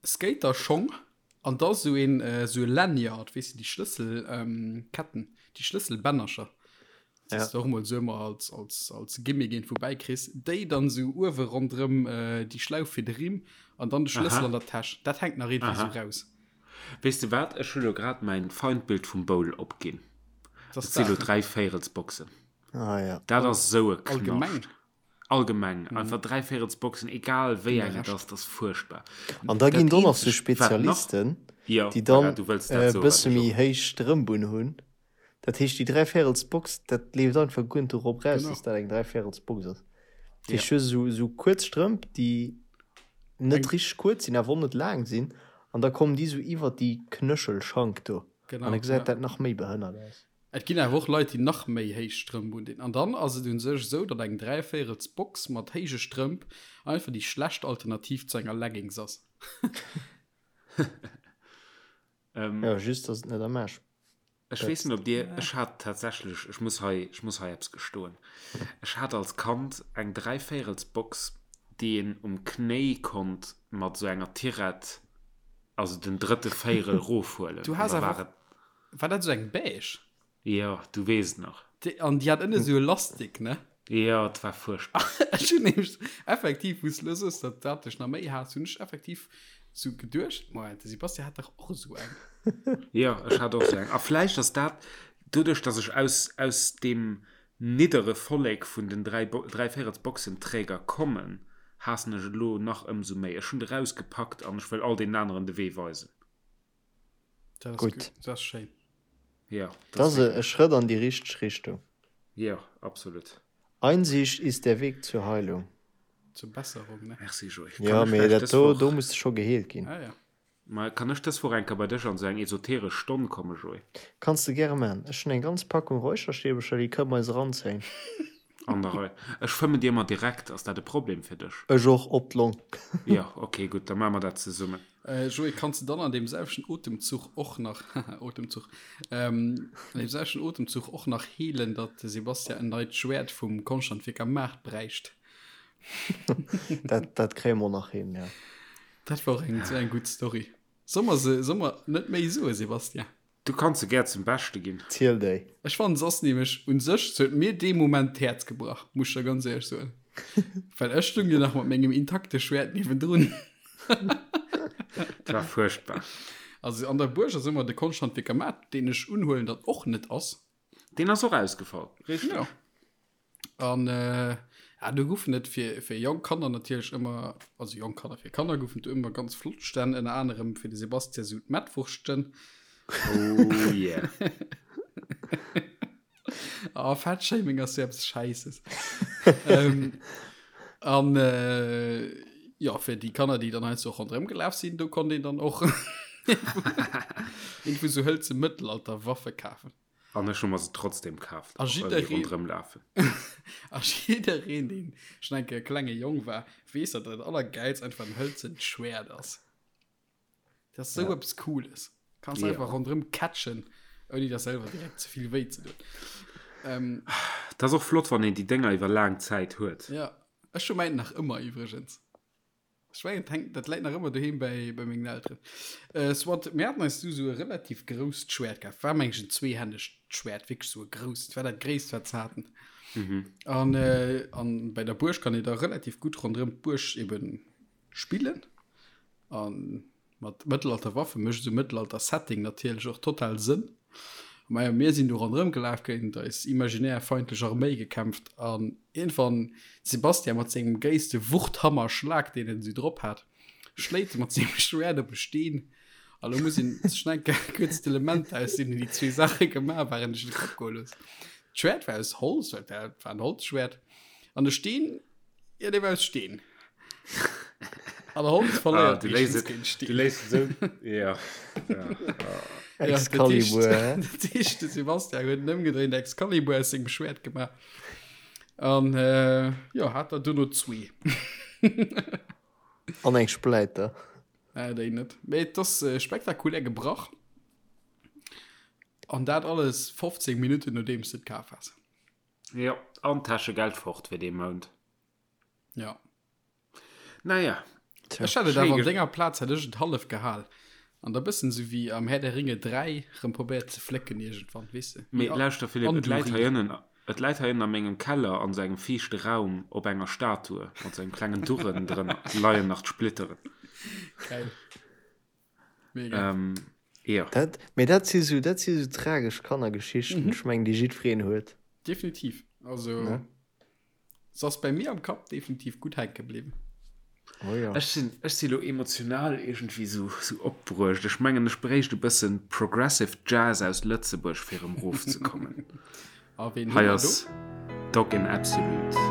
B: Skaterschong an da sou een sou e Lanyard, weess de, déi Schlësselketten, déi Schlësselbännercher, déi s de och emol sou ëmmer als, als, als Gimmick iergendwou bäikriss, déi dann sou uewe ronderëm déi Schlauf fir de Rimm an dann de Schlëssel an der Täsch. Dat hänkt nach iergendwéi sou raus.
A: Weess de wat, ech hu lo grad mäin Feindbild vum Bowl opginn. Et si lo Dräivéierelsboxen.
C: Ah, ja.
A: Dat ass sou e Knascht. Allgemeng. Mhm. Einfach Dräivéierelsboxen, egal wéi eng et ass, dat ass fuerchtbar.
C: An da ginn do nach sou Spezialisten,
A: ja,
C: déi dann
A: voilà, du wëlls dat
C: e
A: soen,
C: bësse
A: wat ech
C: méi
A: och.
C: héich Strëmp un hunn. Dat heescht, déi Dräivéierelsbox, dat leeft einfach guer net dorop raus,
B: Genau.
C: dass dat eng Dräivéierelsbox ass. Dat
A: Ja.
C: heescht, du hues esou, esou kuerz Strëmp, déi net
B: Eng-
C: richteg kuerz sinn, awer och net laang sinn. An da kommen déi sou iwwert déi Knöchelschank do.
B: Genau,
C: An da gesäit
B: ja.
C: dat nach méi behënnert aus.
B: Et ginn awer och Leit, déi nach méi héich Strëmp undinn. An dann ass et un sech esou, datt eng dräivéierels Box mat héije Strëmp einfach déi schlecht Alternativ zu enger Leggings ass.
C: Jo, just dass et net am Aarsch
A: Ech weess net, ob Dir, ech hat tatsächlech, ech muss hei, ech muss hei eppes gestoen, ech hat als Kand eng dräivéierels Box, déi een um Knéi konnt mat esou enger Tirett, also den drëtte Véierel rofhuelen.
B: Du
A: An
B: has
A: da
B: awer
A: war
B: och
A: et
B: War dat esou eng beige?
A: Jo, du weess et nach.
B: Déi, an déi hat ënne esou e Lastik, ne?
A: Jo, et war fuerchtbar.
B: Ech hunn nämlech effektiv, wou s de elo soos, datt dat dech nach méi haasst, hunn ech effektiv esou geduecht, Moment, de Sebastian hat dach och esou eng.
A: Jo, ech hat och esou eng. A vläicht ass dat doduerch, datt ech aus, aus deem niddere Vollek vun den Dräivéierelsboxenträger kommen, haassen ech et elo nach ëmsou méi. Ech hunn et erausgepackt an ech wëll all deenen aneren de Wee weisen.
B: Dat ass
C: Gutt.
B: gutt, dat ass schéin.
A: Ja,
C: Dat ass e Schrëtt an déi richteg Richtung.
A: Ja, absolut.
C: Einsicht ist der Weg zur Heilung.
B: Zur Besserung, ne?
A: Merci, Joé.
C: Jo, mee dat do, do muss de scho geheelt ginn.
B: Ah, ja.
A: Ma kann ech dës Woch eng Kéier bei dech an esou eng esoteresch Stonn kommen, Joé?
C: Kanns de gäre man. Ech hunn eng ganz Packung Räucherstäbercher, déi kënne mer eis eranzéien.
A: An der Rei. Ech fëmmen dir emmer direkt, ass dat e Problem fir dech?
C: Ech och, op d'Long.
A: Jo, ok, gutt, da maache mer dat zesummen.
B: Joé, kanns de dann an deem selwechten Otemzuch och nach, haha, Otemzuch, an deem selwechten Otemzuch och nach heelen, datt de Sebastian en neit Schwäert vum Konschthandwierker Maart bräicht?
C: Dat, dat kréie mer och nach hin, jo.
B: Dat war och eng, esou eng gutt Story. Soll mer se, soll mer net méi soen, Sebastian?
A: Du kanns se gär zum Beschte ginn.
C: Ziel déi.
B: Ech fannen se ass nämlech un sech, se huet mir dee Moment d'Häerz gebrach, muss ech der ganz éierlech soen. Well ech stung jo nach mat mengem intakte Schwäert niewendrun.
A: Dat war fuerchtbar.
B: Also an der Buerg ass ëmmer de Konschthandwierker Maart, deen ech unhuelen, datt och net ass.
A: Deen ass och ausgefall, richteg.
B: Jo. An äh, ja, do goufen et fir, fir jonk Kanner natierlech ëmmer, also jonk Kanner, fir Kanner goufen et ëmmer ganz flott Stänn, ënner anerem fir de Sebastian sou d'Mettwurschten.
A: Oh yeah.
B: Oh, Fettshaming ass sou eppes Schäisses. ähm, an äh, ja, fir déi Kanner, déi dann heiansdo och ronderëm gelaf sinn, do konnt een dann och irgendwou sou hëlze Mëttelalterwaffe kafen.
A: An ech hu mer se trotzdem kaaft,
B: A
A: och well déi
B: jiddereen
A: ronderëm lafen.
B: A jiddereen, deen schonn eng Kéier klenge Jong war, weess, datt dat Allergäilst einfach en hëlzent Schwäert ass. Dat ass sou
C: Ja.
B: eppes Cooles. Kanns
A: Ja.
B: einfach ronderëm catchen. Ouni der selwer direkt ze vill wéi ze doen.
A: Ähm, Dat ass och flott, wann een déi Dénger iwwer laang Zäit huet.
B: Ja, ech hu mäint nach ëmmer iwwregens. Ech mengen, et hänkt, dat läit nach ëmmer doheem bäi, bei mengen Elteren. Äh, soit, mir haten eis du sou e relativ grousst Schwäert kaf. War meng ech en zweehännegt Schwäert, wierklech sou e grousst. War dat gréisst, wat se haten. Mhm. An, äh, an bei der Buerg kann ee da relativ gutt ronderëm d'Buerg eben spillen. An Mat Mëttelalter-Waffe mécht esou Mëttelalter-Setting natierlech och total Sënn. Majo, mir sinn do ronderëm gelaf, géint eis imaginär feindlech Arméi gekämpft an iergendwann Sebastian mat sengem gréisste Wuchthammer-Schlag, deen en esou drop hat, schléit e mat sengem Schwäert op e Steen. A lo muss een sech nach eng Kéier kuerz d'Elementer, aus deenen déi zwee Saache gemaach waren, duerch de Kapp goe loossen. D'Schwäert war aus Holz, well et war en Holzschwäert, an de Steen Ja, dee war aus Steen. An der Holz verléiert ah, du
A: léis géint Steen. Du léis esou. Ja.
C: ja. ja. Excalibur.
B: Dat heescht, de Sebastian huet en ëmgedréint Excalibur aus sengem Schwäert gemaach. An äh, ja, hat der duerno zwee.
C: An eng Spläiter.
B: Äh, déi net. Mee et ass äh, spektakulär gebrach. An dat alles 15 Minutten nodeems du et kaf has.
A: Jo, an Täschegeld fort fir dee Mount.
B: Ja.
A: Naja.
B: Tja. Ech hätt et awer an denger Plaz hätt ech et hallef gehal. An da bëssen sou wéi am Herr der Ringe 3 rëm probéiert ze flécken iergendwann, weess de.
A: Mee lauschter Philippe, et läit hei ënnen, et läit hei ënnen a mengem Keller an sou engem fiichte Raum op enger Statue mat sou engem klengen Durren drënner leien nach d'Splitteren.
B: Geil.
A: Mega. Ähm, jo.
C: Dat, mee dat si sou, dat si sou tragesch Kannergeschichten, mhm. ech mengen, déi jiddwereen huet.
B: Definitiv. Also, ne? Se ass bei mir am Kapp definitiv gutt hänke bliwwen.
A: Oh ja. Ech sinn, ech si lo emotional iergendwéi sou, sou opbruecht. Ech mengen, ech bréicht e bëssen Progressive Jazz aus Lëtzebuerg, fir erëm rofzekommen.
B: A ween hu
A: Hei mer do? ass Dog in Absolute.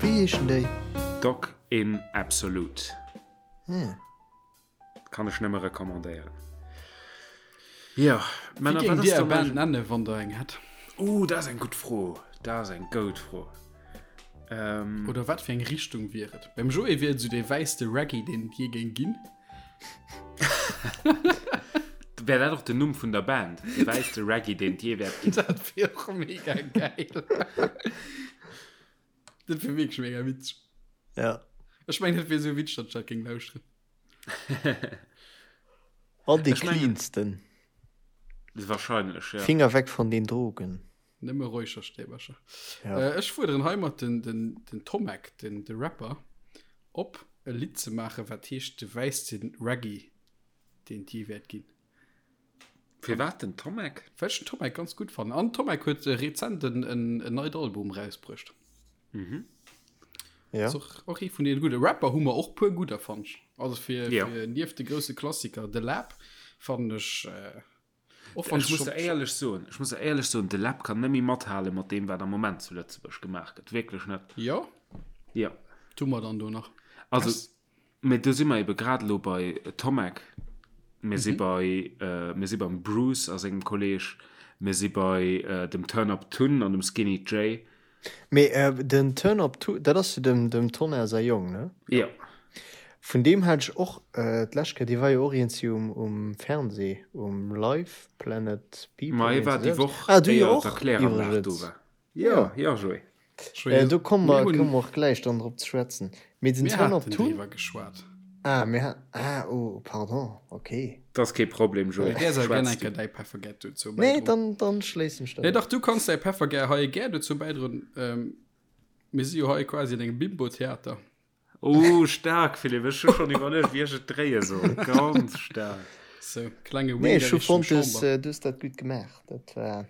C: Wéi heeschen déi?
A: Dog in Absolute. Kann ech nëmme recommandéieren. Jo,
B: Männer, wat ass dann Band nennen, wann der eng hätt?
A: Uh, dat ass eng gutt Fro. Dat ass eng goud Fro.
B: Ähm, Oder wat fir eng Richtung wier et? Beim Joé wier et esou dee wäisste Reggae, deen et jee géing ginn.
A: Wär dat och den Numm vun der Band? De wäisste Reggae, deen et jee wäert
B: ginn. Dat wier och mega geil. Dat wier wierklech mega witzeg.
C: Ja.
B: Ech mengen, dat wier esou witzeg, datt ech dat géing lauschteren.
C: An dee cleansten.
A: Wahrscheinlech,
C: ja. Finger weg von den Drogen.
B: Nëmme Räucherstäbercher. Ja. Äh, ech fuerderen heimat den, den, den Tomek, den, de Rapper, op, e Lidd ze maachen, wat heescht De wäisste Reggae, deen et jee wäert ginn.
A: Firwat den Tomek?
B: Well ech den Tomek ganz gutt fannen. An Tomek huet rezent en, en, en neit Album rausbruecht.
A: Mhm.
B: Ja. Ass och, och ee vun deene gudde. Rapper hu mer och puer gudder, fannen ech. Also fir, ja. fir nieft de grousse Klassiker The Lab fannen ech äh,
A: och wann ech muss der éierlech soen, ech muss der éierlech soen, The Lab kann net méi mathale mat deem wat am Moment zu Lëtzebuerg gemaach gëtt. Wierklech net.
B: Jo.
A: Ja.
B: Tu mer dann do nach.
A: Also Mee do si mer ebe grad elo bei Tomek, mir si bei, mir si beim Bruce a sengem Kolleg, mir si bei dem Turn Up Tun an dem Skinny Jay.
C: Mee den Turn Up Tun, dat ass jo dem dem Tonnerre säi Jong, ne?
A: Jo.
C: Vun deem hat ech och d'lescht Kéier, dee war jo och iergendwéi um um Fernseh, um Live Planet
A: People, Ma hie war déi Woch, ah, du jo éier och, d'Erkläranlag do
C: war. Jo, jo, Joé. Äh, do komme mer, komme mer och gläich dann drop ze schwätzen.
B: Mee den Turn Up Tun. Mir haten driwwer geschwat.
C: Ah, mir ha, ah, oh, pardon, okay.
A: Dat ass kee Problem, Joé.
B: Däers awer gär eng Kéier däi Peffergär dozou
C: bäidroen. Nee, dann, dann schléissen ech
B: dat. Nee, dach, du kanns däi Peffergär hei gär dozou bäidroen. Ähm, mir si jo hei quasi an engem Bimbo-Theater.
A: Oh, staark, Philippe. Ech hu schonn iwwerluecht, wéi ech et dréie soll. Ganz staark.
B: Sou, klenge
C: Wink Nee, ech hu fonnt, du hues, du hues dat gutt gemaach. Dat war,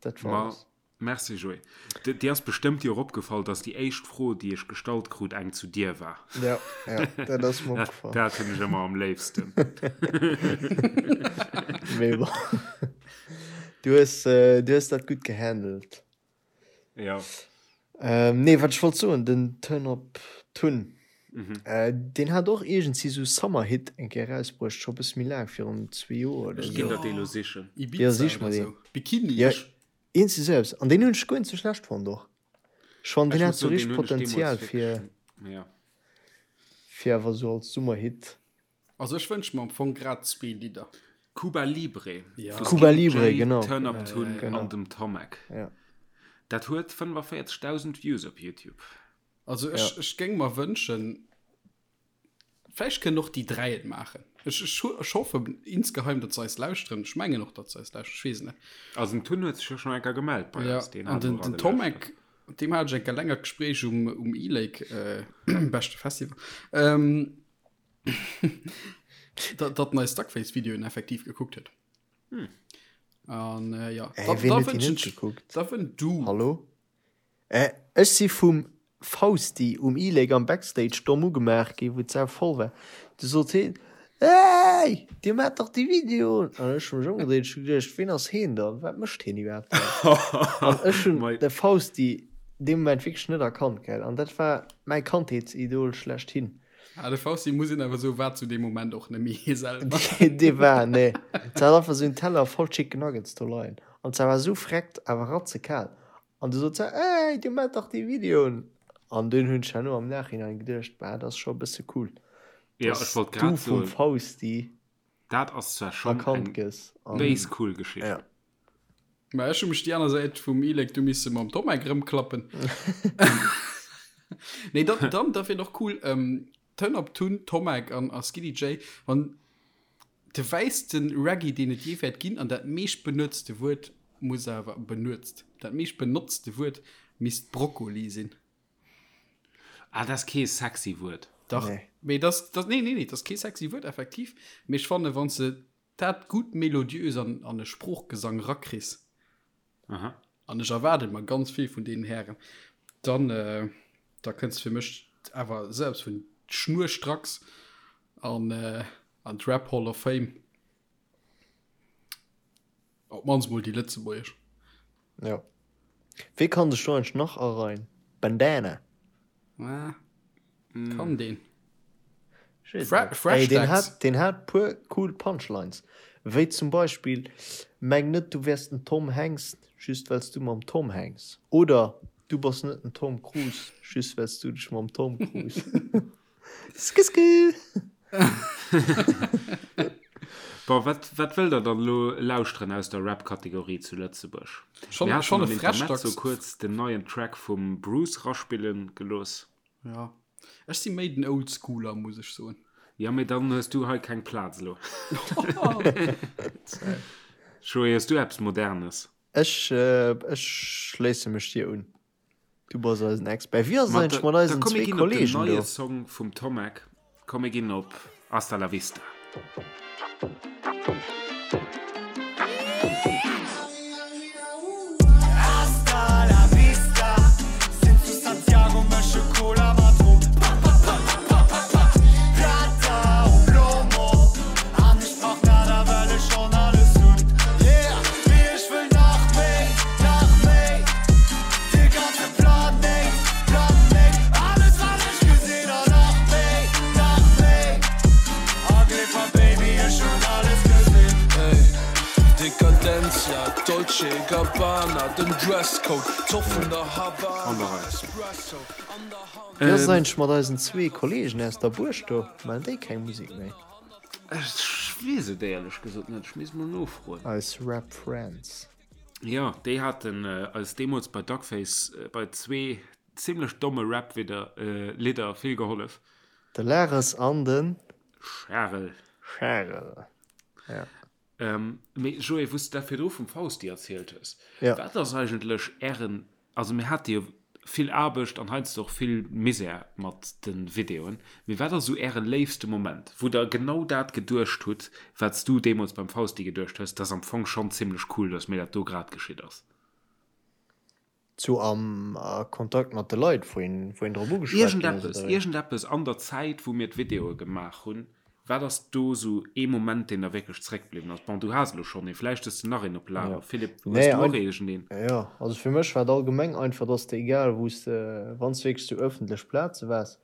C: dat war
A: Ma
C: alles.
A: Merci Joé. Dir ass bestëmmt jo och opgefall, dass déi éischt Fro, déi ech gestallt krut, eng zu dir war.
C: Ja, ja, dat ass mer opgefall.
A: Dat hunn ech ëmmer am léifsten.
C: Mee bon. Du hues, du hues dat gutt gehandelt.
A: Ja.
C: Nee, wat ech wollt soen, den Turn Up Tun, deen hat och iergendsi sou Summer-Hit eng Kéier erausbruecht, scho bësse méi laang, virun zwee Joer oder
A: Ech
C: sou.
A: ginn der dee lo sichen.
C: Ja,
B: Ibiza
C: sich
B: oder
C: mer deen.
B: sou. Bikini.
C: Ja, iergendsi sou eppes. An deen hunn ech guer net sou schlecht fonnt och. Ech fannen,
A: Ech
C: deen hat
A: muss
C: sou
A: soen, deen
C: richteg
A: hunn ech deemools
C: Potenzial fir,
A: wierklech, ja.
C: fir awer sou als Summerhit.
B: Also ech wënsche mer am Fong grad zwee Lidder.
A: Cuba Libre
B: Ja.
A: vu
C: Cuba
A: Skinny
C: Libre,
A: Jay,
C: genau.
A: Turn Up Tun
C: Genau.
A: an dem Tomek.
C: Ja.
A: Dat huet 45.000 Views op YouTube.
B: Also ech, ech géing mer wënschen, vläicht kënnen och déi 3 et maachen. Ech, ech, ech hoffen insgeheim, datt se eis lauschteren. Ech mengen och, datt se eis lauschteren. Ech weess et net.
A: Also den Tun huet sech jo schonn eng Kéier gemellt bei
B: Ja,
A: eis. Deen
B: an
A: hat
B: den,
A: och
B: den
A: alle
B: Tomek,
A: lauschtert.
B: deem hat ech eng Kéier längert Gespréich um, um E-Lake, äh, beschte Festival. Ähm, datt en eis Duckface-Videoen effektiv gekuckt huet.
A: Hm.
B: An äh, ja,
C: Ey,
B: da,
C: ween
B: da
C: huet déi
B: wënschen
C: net
B: ech,
C: gekuckt?
B: da wën du.
C: Hallo? Äh, ech si vum Fausti um E-Lake am Backstage domm ugemaach gi wou d'Sau voll war. Du sot heen, Hey, dir maacht dach déi Videoen! An ech hu mech ëmgedréit, ech hu geduecht, ween ass heen dann? Wat mécht heen iwwerhaapt hei? An ech hunn
A: Mei.
C: de Fausti dee Moment wierklech net erkannt, gell? An dat war mäi Kandheetsidol schlechthin.
B: Ah, de Fausti muss een awer soen, war zu deem Moment och net méi hie selwer.
C: Dee war, nee. Se hat einfach esou en Teller voll Chicken Nuggets do leien. An se war esou freckt, awer ratzekal. An du sot se, Ey, dir maacht dach déi Videoen! An dunn hunn ech herno am Nachhinein geduecht, Bah, dat ass scho e bësse cool,
A: Ja,
C: dass
A: ech wollt
C: du
A: grad
C: vum
A: soen,
C: Fausti
A: dat ass zwar schonn
C: erkannt
A: eng
C: gëss. An
A: béis cool Geschicht.
C: ja.
B: Mä ech hu mech déi aner Säit vum E-Lake du misse mam Tomek rëmklappen. Nee, dann, dann, dat wier och cool, ähm, Turn Up Tun, Tomek an, a Skinny Jay, wann de wäisste Reggae, deen et jee wäert ginn, an dat meescht benuetzte Wuert muss awer, benuezt, dat meescht benotzte Wuert misst Brokkoli sinn.
A: Ah, dat ass kee sexy Wuert.
B: Dach,
C: Nee.
B: mee das, das, nee, nee, nee, dat ass kee sexy Wuert, effektiv, mee ech fanne, wann s de dat gutt melodiös an, an e Sproochgesang rakriss,
A: Aha.
B: an ech erwaarde mer ganz vill vun deenen Hären, dann, äh, da kënns fir mech awer selbst vun schnurstracks an, äh, an d'Rap Hall of Fame. Op d'mannst mol déi lëtzebuergesch.
C: Jo. Wee kann sech do eigentlech nach areien? Bandana?
B: Ah, kann deen.
C: Ech weess
B: Fra
C: net.
B: Fresh
C: Ey, deen
B: Dax.
C: hat, deen hat puer cool Punchlines. Wéi zum Beispill, Meng net du wäers den Tom Hanks, just well s du mam Tom Hanks. Oder Du bass net den Tom Cruise, just well s du dech mam Tom Cruise. Skisky!
A: Bon, wat, wat wëllt der dann elo lauschteren aus der Rap-Kategorie zu Lëtzebuerg?
B: Schon,
A: Mir haten
B: schon
A: am
B: e
A: Intermezzo
B: Freshdax.
A: kuerz den neien Track vum Bruce raspillen gelooss.
B: Ja. Ech si méi den Oldschooler, muss ech soen.
A: Ja, mee dann hues du hei keng Plaz elo. Joé, hues du eppes Modernes?
C: Ech, ech schléisse mech dir un. Du bass eisen Expert. Wéi ass et
A: Ma
C: eigentlech
A: da,
C: mat
A: da
C: eisen
A: komm mir
C: zwee
A: ginn op den
C: Kollegen
A: neie
C: do?
A: Song vum Tomek. Komm mir ginn op Hasta la Vista.
D: Hasta la vista, sinn zu Santiago, mësche Cola mat Rum. Pa, pa, pa, pa, pa, pa, Plata o Plomo, an ech brauch nada, well ech schonn alles hunn. Yeah, mee ech wëll nach méi, nach méi. De ganze Planéit, Planéit, alles wat ech gesinn an nach méi, nach méi. A gleef mer Baby, ech hunn alles gesinn.
E: Ey, Dekadentia, Dolce Gabbana, den Dresscode, Zoff vun der Havana, Espresso an der Hand.
C: Wéi ass et eigentlech mat eisen zwee Kollegen aus der Buerg do? Maachen déi keng Musek méi?
A: Ech weess et éierlech gesot net, ech misst mol nofroen.
C: Eis Rap Friends.
A: Jo, déi haten eis deemools bei Duckface bei zwee zimlech domme Rap-Widder, Lidder vill gehollef.
C: De Lares an de
A: Charel.
C: Charel, ja.
A: Mee Joé, wou s de dat virdru vum Fausti erzielt hues,
C: Ja.
A: wat ass eigentlech Ären, also mir hate jo vill Aarbecht an heiansdo och vill Misär mat de Videoen, mee wat ass esou Äre léifste Moment, wou Der genau dat geduecht hutt, wat s du deemools beim Fausti geduecht hues, dat ass am Fong schonn zimlech cool, datt mir dat do grad geschitt ass?
C: Zu am a Kontakt mat de Leit, wou een, wou een drop ugeschwat ginn ass,
A: Iergendeppes,
C: oder wéi?
A: iergendeppes an der Zäit, wou mir d'Videoe gemaach hunn, wat ass do sou ee Moment, deen der wierklech zréckbliwwen ass? Bon, du has elo schonn een, vläicht hues de nach een op Lager.
C: Ja.
A: Philippe, hues
C: Nee,
A: du och
C: ein,
A: iergendeen?
C: jo, also fir mech war et allgemeng einfach, dass de egal wou s de, wann s de wierklech zu ëffentlech Plaze waars,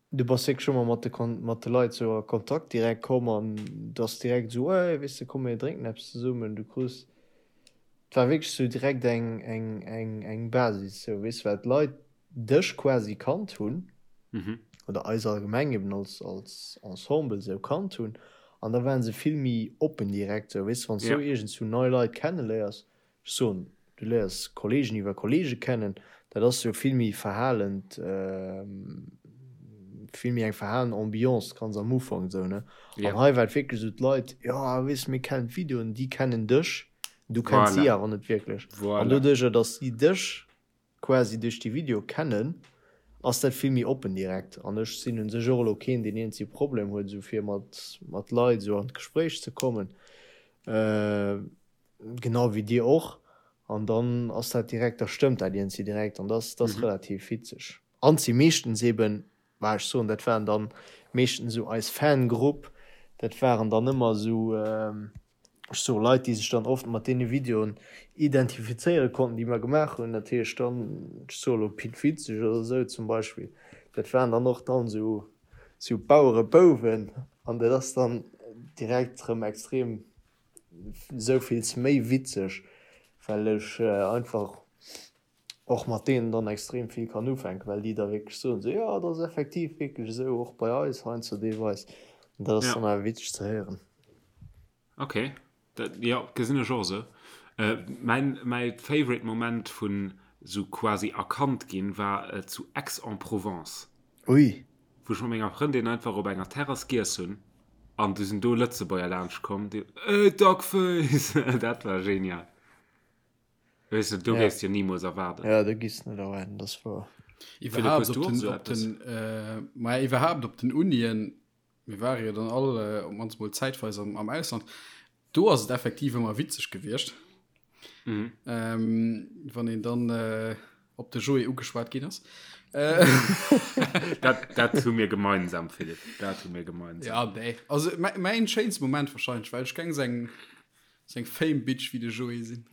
C: Du bass wierklech ëmmer mat de mat de Leit sou a Kontakt direkt komm an du ass direkt sou, hey, weess de, komm mir drénken eppes zesummen. Du krus, et war wierklech sou direkt eng eng eng eng Basis sou, weess de, well d'Leit dech quasi kannt hunn oder eis allgemeng eben als als Ensemble sou kannt hunn an da waren se vill méi oppen direkt sou, weess de, wann s du iergendswou nei Leit kenneléiers, Ech soen, du léiers Kollegen iwwer Kollege kennen, dat ass jo vill méi verhalend, vill méi eng verhalen Ambiance ganz am Ufank esou, ne? An hei war et wierklech esou, d'Leit, jo weess, mir kennen d'Videoen, déi kennen dech, du kenns si awer net wierklech. An doduercher, datt si dech quasi duerch déi Video kennen, ass dat vill méi oppen direkt. An ech sinn un sech och elo keen, deen iergendwéi Problem huet, esou fir mat mat Leit esou an d'Gespréich ze kommen. Genau wéi dir och. An dann ass dat direkt, da stëmmt dat iergendwéi direkt an dat ass relativ witzeg. An si meeschtens eben, bah ech soen, dat waren dann meeschtens esou eis Fangrupp, dat waren dann ëmmer esou, ech soe Leit, déi sech dann oft mat deene Videoen identifizéiere konnten, déi mer gemaach hunn. Dat heescht dann, ech soe elo Pit Witzeg oder esou zum Beispill, dat waren dann och dann esou, esou Bauerebouwen an dat ass dann direkt erëm extrem Souvills méi witzeg, well ech einfach och mat deenen dann extrem vill kann ufänken, well déi da wierklech soen, sou, jo, dat ass effektiv wierklech esou, och bei eis heiansdo deelweis. An dat ass dann awer witzeg ze héieren.
A: Ok, dat, jo, gesinn ech och esou. Mäin, mäi favorite Moment vun sou quasi erkannt ginn war zu Aix-en-Provence.
C: Ui.
A: Wou ech mat menger Frëndin einfach op enger Terrass giess hunn an du sinn do Lëtzebuerger laanscht komm, déi Ey Duckface! Dat war genial. Weess de, do
C: Ja.
A: géifs de jo nimools erwaarden.
C: Ja, do giffs de net erwaarden, dat ass wouer.
A: Philippe,
B: Iwwerhaapt
A: hues
B: op
A: du och
B: den,
A: esou
B: op
A: eppes?
B: den, äh, maja, iwwerhaapt op den Unien, mir ware jo dann all äh, op d'mannst mol zäitweis am, am Ausland, Do ass et effektiv ëmmer witzeg gewiescht, mhm. ähm, wann een dann äh, op de Joé ugeschwat ginn ass.
A: Äh. dat, dat hu mir gemeinsam Philipp dat hu mir gemeinsam.
B: Ja, nee. Also mäin schéinste Moment wahrscheinlich, well ech geng seng seng Fame Bitch wie de Joé sinn.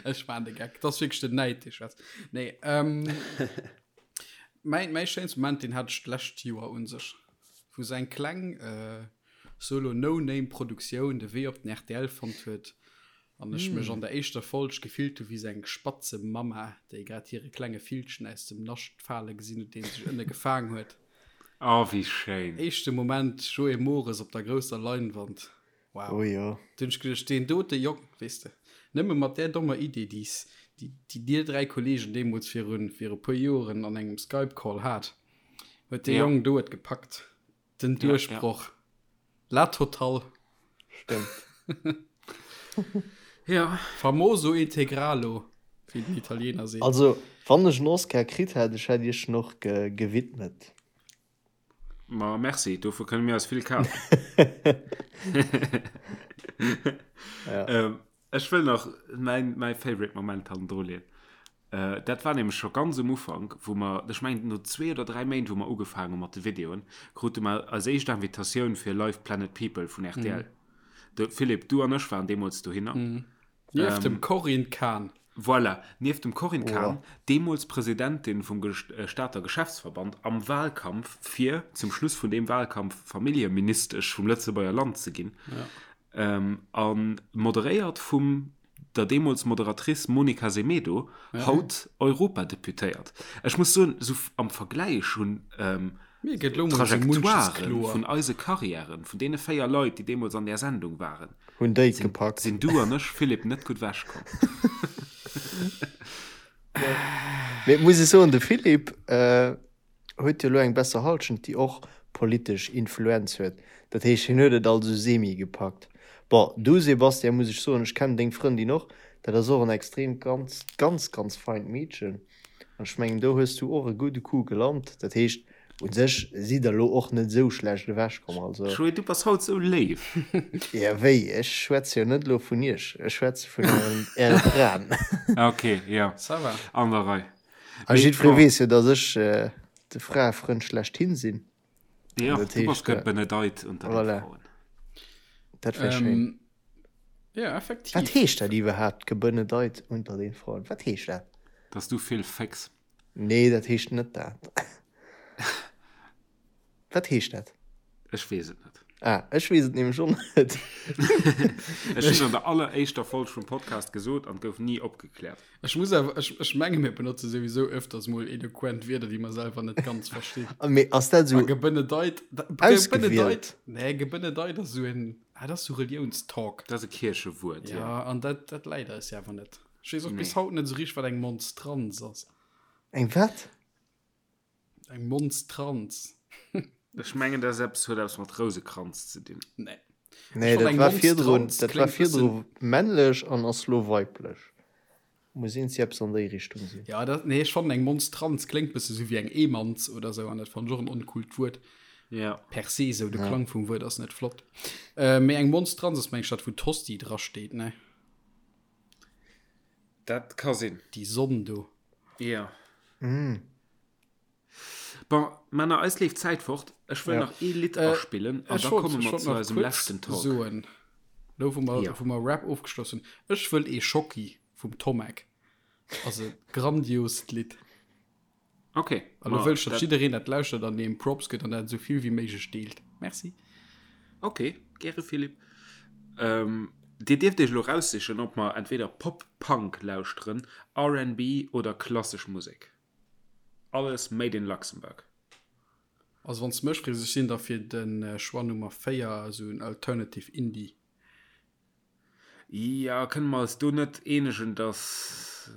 B: Ech war de Geck. Das wierklech den Näid, dee schwätzt. Nee, ähm, mäin, mäin schéinste Moment, den hat ech d'lescht Joer un sech, wou se eng kleng äh, Solo No Name Produktioun de Wee op den rtl fonnt huet an ech mech an der éischter Folg gefillt hu wéi sou eng Spatzemamma, déi grad hire klenge Villchen aus dem Nascht fale gesinn huet, deen sech ënne gefaang huet.
A: Oh, wéi schéin!
B: Éischte Moment, Joé Mores op der grousser Leinwand. Wow.
C: Oh jo.
B: Du hunn ech geduecht, deen dote Jong, weess de, nëmme mat där dommer Idee, déi s, déi, déi dir 3 Kollegen deemools virun, vir e puer Joren an engem Skype-Call hat, huet dee
A: Ja.
B: Jong do et gepackt. Den Duerchbroch. Ja, ja. La totale.
C: Stimmt.
A: ja.
B: Famoso integralo, wéi den Italiener seet.
C: Also, wann ech en Oscar kritt hätt, ech hätt iech en och ge gewidmet.
A: Ma merci, dofir kënne mir eis vill kafen.
C: ja.
A: ähm, ech wëll nach mäin, mäi favorite Moment hannendru leeën. Dat war nämlech scho ganz um Ufank, wou mer, ech mengen no zwee oder dräi Méint, wou mer ugefaangen hu mat de Videoen, krute mer eis éischt Invitatioun fir Live Planet People vun rtl. De Philippe, du an ech waren deemools dohinner.
B: Nieft dem Corinne Cahen.
A: Voilà, nieft dem Corinne Cahen, deemools Presidentin vum Stater Geschäftsverband, am Wahlkampf, fir zum Schluss vun deem Wahlkampf Familljeministesch vum Lëtzebuerger Land ze ginn, a moderéiert vum der deemools Moderatrice Monica Semedo, haut Europadeputéiert. Ech muss soen, esou am Vergläich hunn d'Trajectoiren vun eise Karriären, vun deene 4 Leit, déi deemools an där Sendung waren,
C: Hunn déi et gepackt.
A: sinn du an ech, Philippe, net gutt ewechkomm.
C: Mee et muss ee soen, de Philippe huet jo elo eng besser Halschent, déi och politesch Influenz huet. Dat heescht, hien huet et also semi gepackt. Bon, du Sebastian, muss ech soen, ech kennen deng Frëndin och, dat ass och en extrem ganz, ganz, ganz feint Meedchen. An ech mengen, do hues du och e gudde Coup gelant. Dat heescht, U sech sidd der elo och net esou schlecht ewech komm, also.
A: Joé, du bass haut esou léif.
C: Jo, wéi? Ech schwätze jo net elo vun iech, ech schwätze vun äre Fraen.
A: Ok, jo,
B: Ça va.
A: An der Rei.
C: A jiddweree weess jo, datt ech de Fraefrënd schlechthin sinn.
A: Jo, du bass gebenedeit unter de Fraen.
C: Dat wär schéin.
B: Jo, effektiv.
C: Wat heescht dat iwwerhaapt, gebenedeit unter den Fraen? Wat heescht dat?
A: Datt s du vill fécks.
C: Nee, dat heescht net dat. Wat heescht dat?
A: Ech weess et net.
C: Ah, ech weess et nämlech och net.
A: Ech hunn an der alleréischter Folg vum Podcast gesot an et gouf ni opgekläert.
B: Ech muss awer, ech, ech menge mir benotze souwisou öfters mol eloquent Wierder, déi mer selwer net ganz verstinn.
C: Ah, mee ass dat
B: A
C: esou
B: gebenedeit, da,
C: ausgewielt?
B: gebenedeit, nee, gebenedeit ass esou en, ah, dat ass sou Reliounstalk.
A: Dat ass e Kierchewuert,
B: jo. Ja, an dat, dat läit eis jo awer net. Ech weess och bis haut net esou richteg, wat eng Monstranz ass.
C: Eng wat?
B: Eng Monstranz.
A: Ech mengen, dat ass eppes, huet eppes mat Rousekranz ze dinn.
B: Nee.
C: Nee, dat war virdrun, dat war virdru männlech an ass lo weiblech. Muss iergendwéi eppes an déi Richtung sinn.
B: Ja, dat, nee, ech fannen eng Monstranz kléngt bësse sou wéi eng Eemanz oder sou an dat fannen ech och en oncoolt Wuert.
A: Ja.
B: Per se sou, de Klang vum Wuert ass net flott. Mee eng Monstranz ass meng ech dat wou d'Hostie drasteet, ne?
A: Dat ka sinn.
B: Déi Sonn do.
A: Ja. Mm. Bon, Männer, eis leeft d'Zäit fort. Ech wëll ja. nach ee Lidd äh, aspillen an da komme mer zu eisem leschten Talk.
B: Soen. Lo wou mer, ja. wou mer Rap ofgeschloss hunn. Ech wëll ee Schocki vum Tommek. Also grandiost Lidd.
A: Ok.
B: An lo wëll ech, datt jiddereen dat lauschtert an deem Props gëtt an dat esou vill wéi méiglech deelt. Merci.
A: Ok, gäre Philippe. Ähm, dir dierft iech elo raussichen, ob mer entweder Pop-Punk lauschteren, RnB oder klassesch Musek. Alles made in Luxembourg.
B: Also wann s de mech frees, ech sinn da fir de Choix Nummer 4, esou en Alternative Indie.
A: Jo, kënne mer eis do net eenegen, dass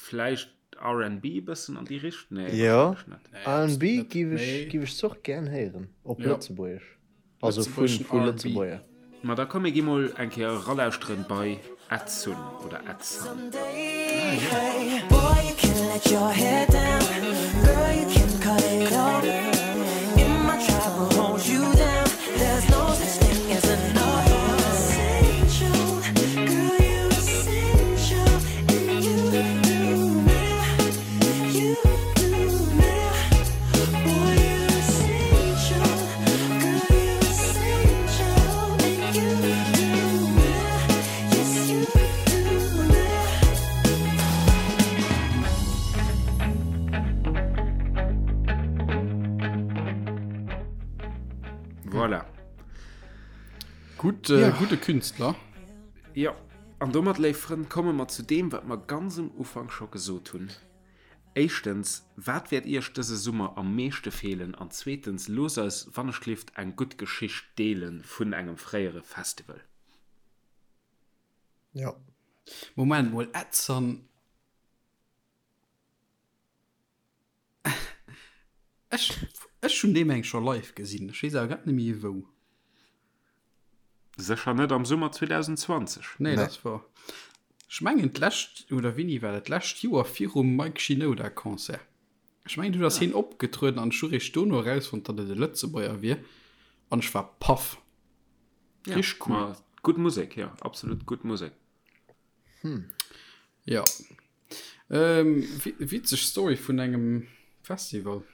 A: vläicht RnB e bëssen an déi Richt-, nee,
C: Jo,
A: wahrscheinlech net.
C: RnB giff ech, giff ech och gären héieren, op Lëtzebuergesch, also vu vu Lëtzebuerger.
A: Ma da komm mir gi mol eng Kéier eralauschteren bei Edsun oder Edsun. Voilà.
B: Gutt, äh, gudde Künstler.
A: Jo, an domat, léif Frënn, komme mer zu deem, wat mer ganz um Ufank scho gesot hunn. Éischtens, wat wäert Iech dëse Summer am meeschte feelen? An zweetens, loosst eis wannechgelift eng gutt Geschicht deele vun engem fréiere Festival.
C: Jo.
B: Moment mol, Edson, ech, ech hunn dee meng scho live gesinn, ech weess awer grad net méi wou.
A: Sécher net am Summer 2020.
B: Nee, dat ass wor. Ech mengen d'lescht, oder wéini war dat, d'lescht Joer virum Mike Shinoda Concert. Ech mengen dunn ass hien opgetrueden an ech hu réischt dono erausfonnt, datt et e Lëtzebuerger wier an ech war paff.
A: Richteg cool. Ma gutt Musek, jo, absolut gutt Musek.
B: Jo. Ähm, witzeg Story vun engem Festival.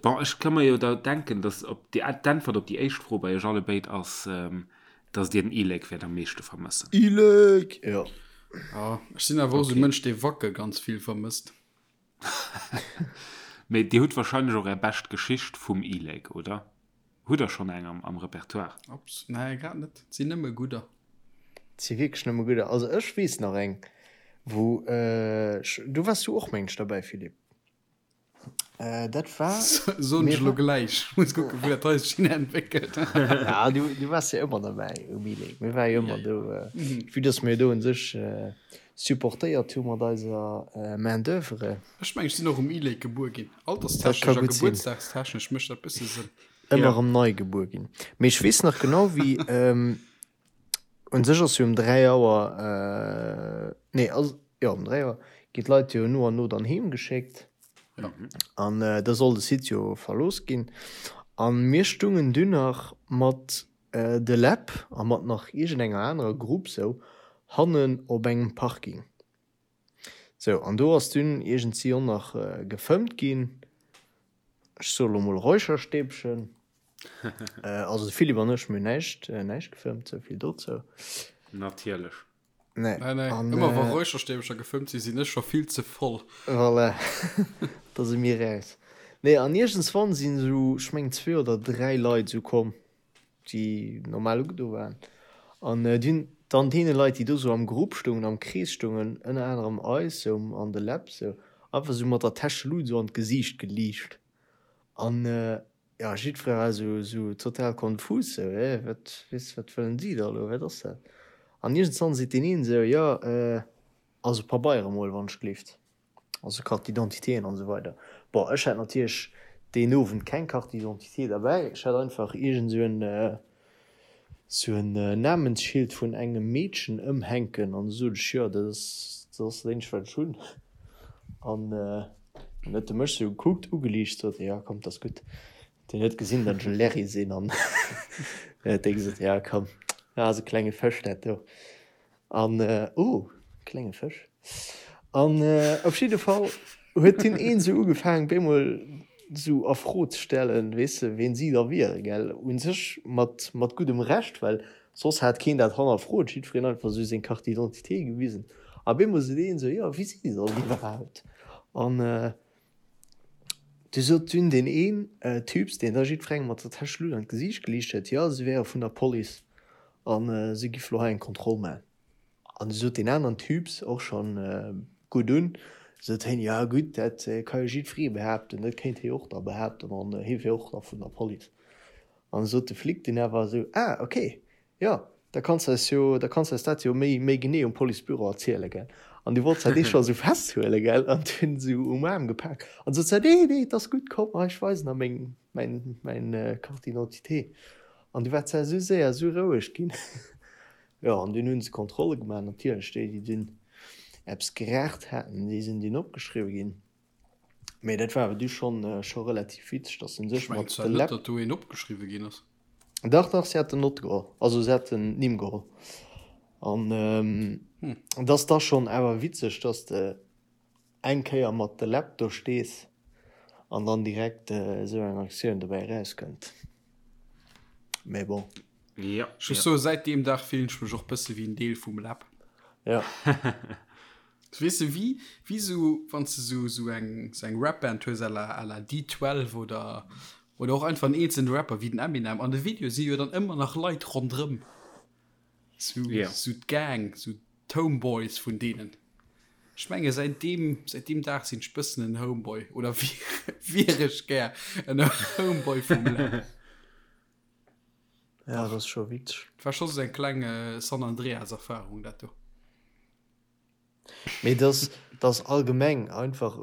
A: Bon, ech ka mer jo da denken, dass op déi, d'Äntwert op déi éischt Fro bei iech alle béid ass, dass dir den E-Lake wäert am meeschte vermëssen.
C: E-Lake, jo.
B: Ja, ech sinn awer och esou e Mënsch, dee Wacke ganz vill vermësst.
A: Mee dir hutt wahrscheinlech och är bescht Geschicht vum E-Lake, oder? Hutt der schonn eng am Repertoire?
B: Ups, nee, grad net. Et sinn nëmme gudder.
C: Et si wierklech nëmme gudder. Also ech weess nach eng, wou ech, do waars du och, mengen ech, derbäi, Philippe. Dat war.
B: Soen ech elo gläich. Muss kucken, wou dat hei sech hin entwéckelt.
C: Ja, du, du waars jo ëmmer derbäi um E-Lake. Mir ware jo ëmmer do, vue dass mir do un sech supportéiert hu mat eiser Main d'oeuvre.
B: Ech mengen, ech sinn och um E-Lake gebuer ginn. Alterstechnesch a gebuertsdagstechnesch mécht dat bësse Sënn.
C: Ëmmer erëm nei gebuer ginn. Mee ech weess nach genau wéi, un sech ass jo um 3 Auer, nee ass, jo um 3 Auer ginn d'Leit jo no an no dann heem geschéckt. Ja. An äh, da soll de Site jo verlooss ginn. An mir stungen dunn nach mat äh, de Läb a mat nach iergendenger anerer Grupp sou hannen op engem Parking. Sou, an do ass dunn iergendsi och nach äh, gefëmmt ginn. Ech soe lo mol Räucherstäbchen. Äh, also de Philippe an ech, mir hunn näischt, äh, näischt gefëmmt, souvill dozou.
A: Natierlech.
B: Nee. Nee, nee. An, Ëmmer wa äh, Räucherstäbcher gefëmmt sinn, sinn ech scho vill ze voll.
C: Voilà. Da si mir raus. Nee, an iergendswann sinn esou, ech mengen zwee oder dräi Leit esou komm, déi normal ugedo waren. An äh, déi hunn dann deene Leit, déi do esou am Grupp stoungen, am Krees stoungen, ënner anerem eis esou an de Läb esou, einfach esou mat der Täschelut esou an d'Gesiicht geliicht. An äh, Jo, jiddweree war esou, esou total konfus, esou, hä, wat, weess, wat wëllen déi da elo, wat ass dat? An iergendswann seet deen een esou, jo, also Pabeiere mol, wann ech gleeft, also Carte d'identitéen an esou weider. Bon, ech hat natierlech deen Owend keng Carte d'identité derbäi, ech hat einfach iergend esou en, esou en Namensschild vun engem Meedchen ëmhänken an du sot ech, jo, dat ass, dat ass dat eenzegt, wat ech hunn. An dann huet e mech sou gekuckt, ugeliicht, sot e, jo, komm, 't ass gutt. Deen huet gesinn, datt ech e Larry sinn an huet dee gesot, jo, komm, dat ass e klenge Fësch, dat do. An, oh, klenge Fësch. An op jidde Fall huet deen een esou ugefaangen, bemol esou a Fro ze stellen, weess de, ween si da wieren, gell. U sech mat, mat guddem Recht, well soss hat keen dat hannerfrot, jiddwereen einfach esou seng Carte d'identité gewisen. A bemol sot een esou, jo, wie si dann iwwerhaapt? An du sot dunn deen een Typs, deen da jiddwerengem mat der Täschelut an d'Gesiicht geliicht huet, jo, si wäre vun der Police a si giff lo hei eng Kontroll maachen. An du sot deen aneren Typs, och schonn gutt un, sot hien, jo gutt, dat ka jo jiddweree behaapten, dat kéint hie och da behaapten an hie wier och da vun der Police. An du sot de Flic dunn awer esou, ah ok, jo, da kanns de eis jo, da kanns de eis dat jo méi, méi genee um Policebüro erzielen, gell. An du wollt se dee scho esou festhuelen, gell, an hunn esou um Aarm gepak an sot se, nee, nee, et ass gutt, komm, hei, ech weisen der meng, mäin, mäin Carte d'identité. An du war d'Sar esou séier esou roueg ginn. Jo, an dunn hu se Kontrolle gemaach, natierlech déi, déi dunn eppes geraacht haten, déi sinn dunn opgeschriwwe ginn. Mee dat war awer du schonn, scho relativ witzeg, dass se
B: sech mat de Läpp. Net, datt do een opgeschriwwe ginn ass.
C: Dach, dach, si haten Nott geholl, also si haten d'Nimm geholl. An et ass da schonn awer witzeg, dass de eng Kéier mat de Läpp do stees an dann direkt esou eng Aktioun dobäi erauskënnt. Mee bon.
B: Ja, Ech muss soen, säit deem Dag fillen ech mech och bësse wéi en Deel vum Läpp.
C: Ja.
B: Weess de, wéi, wéi sou, wann s de sou, sou eng, sou eng Rap-Band hues à la, à la D12 oder, oder och einfach en eenzelne Rapper wéi den Eminem, an de Videoe si jo dann ëmmer nach Leit ronderëm. Sou, yeah. sou d'Gang, sou d'Homeboys vun deenen. Ech menge säit deem, säit deem Dag sinn ech bëssen en Homeboy oder wier ech gär en Homeboy vum
C: Läb. Ja, dat ass scho witzeg.
B: Dat war scho sou eng kleng San Andreas-Erfarung, dat do.
C: Mee dass, dass allgemeng einfach,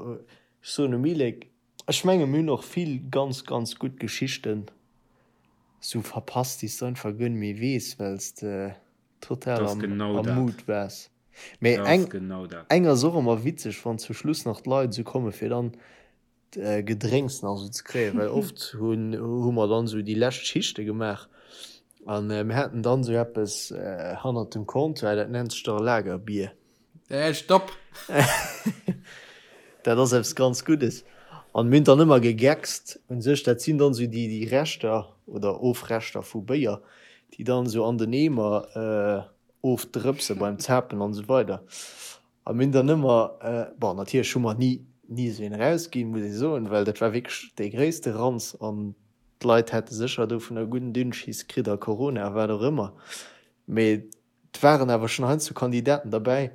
C: ech soen um Ilek, ech menge mir hunn och vill ganz, ganz gutt Geschichten sou verpasst, déi s de einfach guer net méi weess, well s de total am, am Mood waars. Mee eng, eng ass och ëmmer witzeg, wann zum Schluss nach d'Leit esou komme fir dann Gedrénks nach esou ze kréien, well oft hunn hu mer dann esou déi lescht Schichte gemaach an mir haten dann esou eppes hannert dem Comptoir, dat nennt sech da Lagerbier.
B: Äh, stopp!
C: Dat ass eppes ganz Guddes an mir hunn dann ëmmer gegeckst un sech, dat sinn dann esou déi déi Reschter oder Ofreschter vu Béier, déi dann esou an den Eemer ofdrëpse beim Zapen an esou weider. A mir hunn dann ëmmer, bon natierlech hu mer ni ni esou een erausginn, muss ee soen, well dat war wierklech dee gréisste Ranz an d'Leit hätte sécher dovunner gudden Dünnschiss kritt a Corona a wat och ëmmer. Mee et waren awer schonn heiansdo Kandidaten derbäi,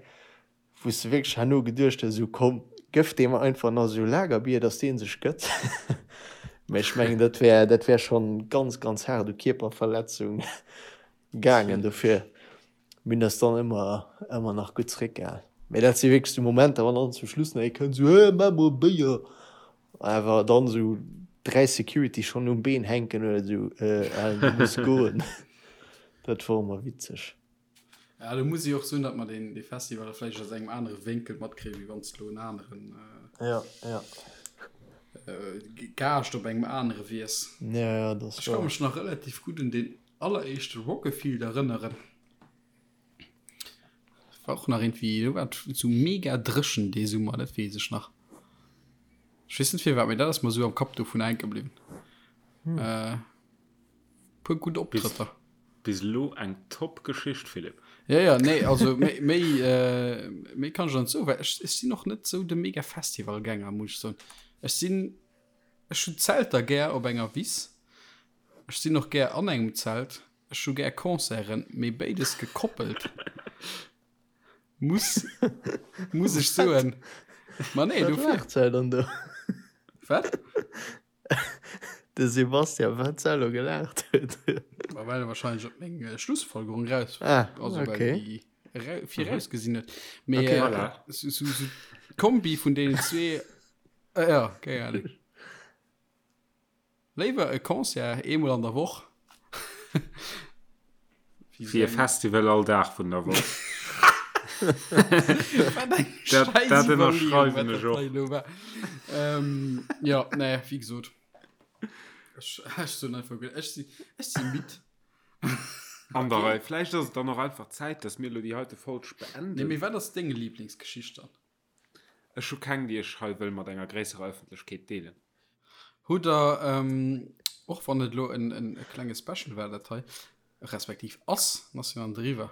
C: wou s de wierklech herno geduecht hues, esou komm, gëff deem einfach nach esou Lagerbier, datt dee sech gëtt. Mee ech mengen, dat wär dat wär schonn ganz, ganz haart u Kierperverletzung gaangen. Dofir Mir hunn eis dann ëmmer, ëmmer nach gutt zeréckgehal. Mee dat si wierklech sou Momenter, wann dann zum Schluss nach ee kënnt, sou, Hä, maach mol e Béier! Awer dann sou 3 Security schonn um Been hänken oder sou, Äh, Alan, du muss goen. Dat wor ëmmer witzeg.
B: Ja, do muss ech och soen, datt mer deen, dee Festival da vläicht aus engem anere Wénkel matkréien, wéi wann s de elo en aneren.
C: Ja, ja.
B: Gaascht op engem anere wiers.
C: Ja, ja, dat ass
B: Ech ka
C: wahr.
B: mech nach relativ gutt un deen alleréischte Rock-A-Field erënneren. War och nach irgendwie, do war et sou mega dréchen dee Summer, dat weess ech nach. Ech weess net firwat, mee dat ass mer sou am Kapp dovun hänke bliwwen. Äh, puer gutt Optrëtter.
A: Bis elo eng top Geschicht, Philippe.
B: Ja, ja, nee, also méi, méi, äh, méi kann ech der net soen, well ech, ech sinn och net sou de mega Festivalgänger, muss ech soen. Ech sinn, ech hunn Zelter gär op enger Wiss, ech sinn och gär an engem Zelt, ech hu gär Concerten, mee béides gekoppelt muss, muss ech soen. Ma nee,
C: Wat
B: dofir.
C: laacht se dann do?
B: Wat?
C: De Sebastian, wat se elo gelaacht huet.
B: Ma well e wahrscheinlech op meng äh, Schlussfolgerung raus,
C: Ah,
B: also well
C: okay.
B: déi ra virausgesinn huet. Mee
C: Okay,
B: äh,
A: Voilà.
B: so, so, so d'Kombi vun deenen zwee, äh, ja, keng Ahnung. Léiwer e Concert eemol an der Woch.
A: Wéi e Festival all Dag vun der Woch.
B: Wat eng
A: Dat,
B: scheiß
A: dat
B: Iwwerleeung,
A: ënnerschreiwen
B: wat
A: ech
B: dat
A: och.
B: hei elo war. Ähm, ja, nee, wéi gesot. Ech, ech soen einfach, ech si, ech si midd.
A: An der Rei. Vläicht ass et dann och einfach Zäit, dass mir elo déi heite Folg
B: Nee,
A: beenden.
B: mee wat ass deng Lieblingsgeschicht dann?
A: Ech hu keng, déi ech hei wëll mat enger gréisserer Ëffentlechkeet deelen.
B: Hutt der, och wann et elo en klenge Special war dat hei, respektiv ass, ass jo an driwwer,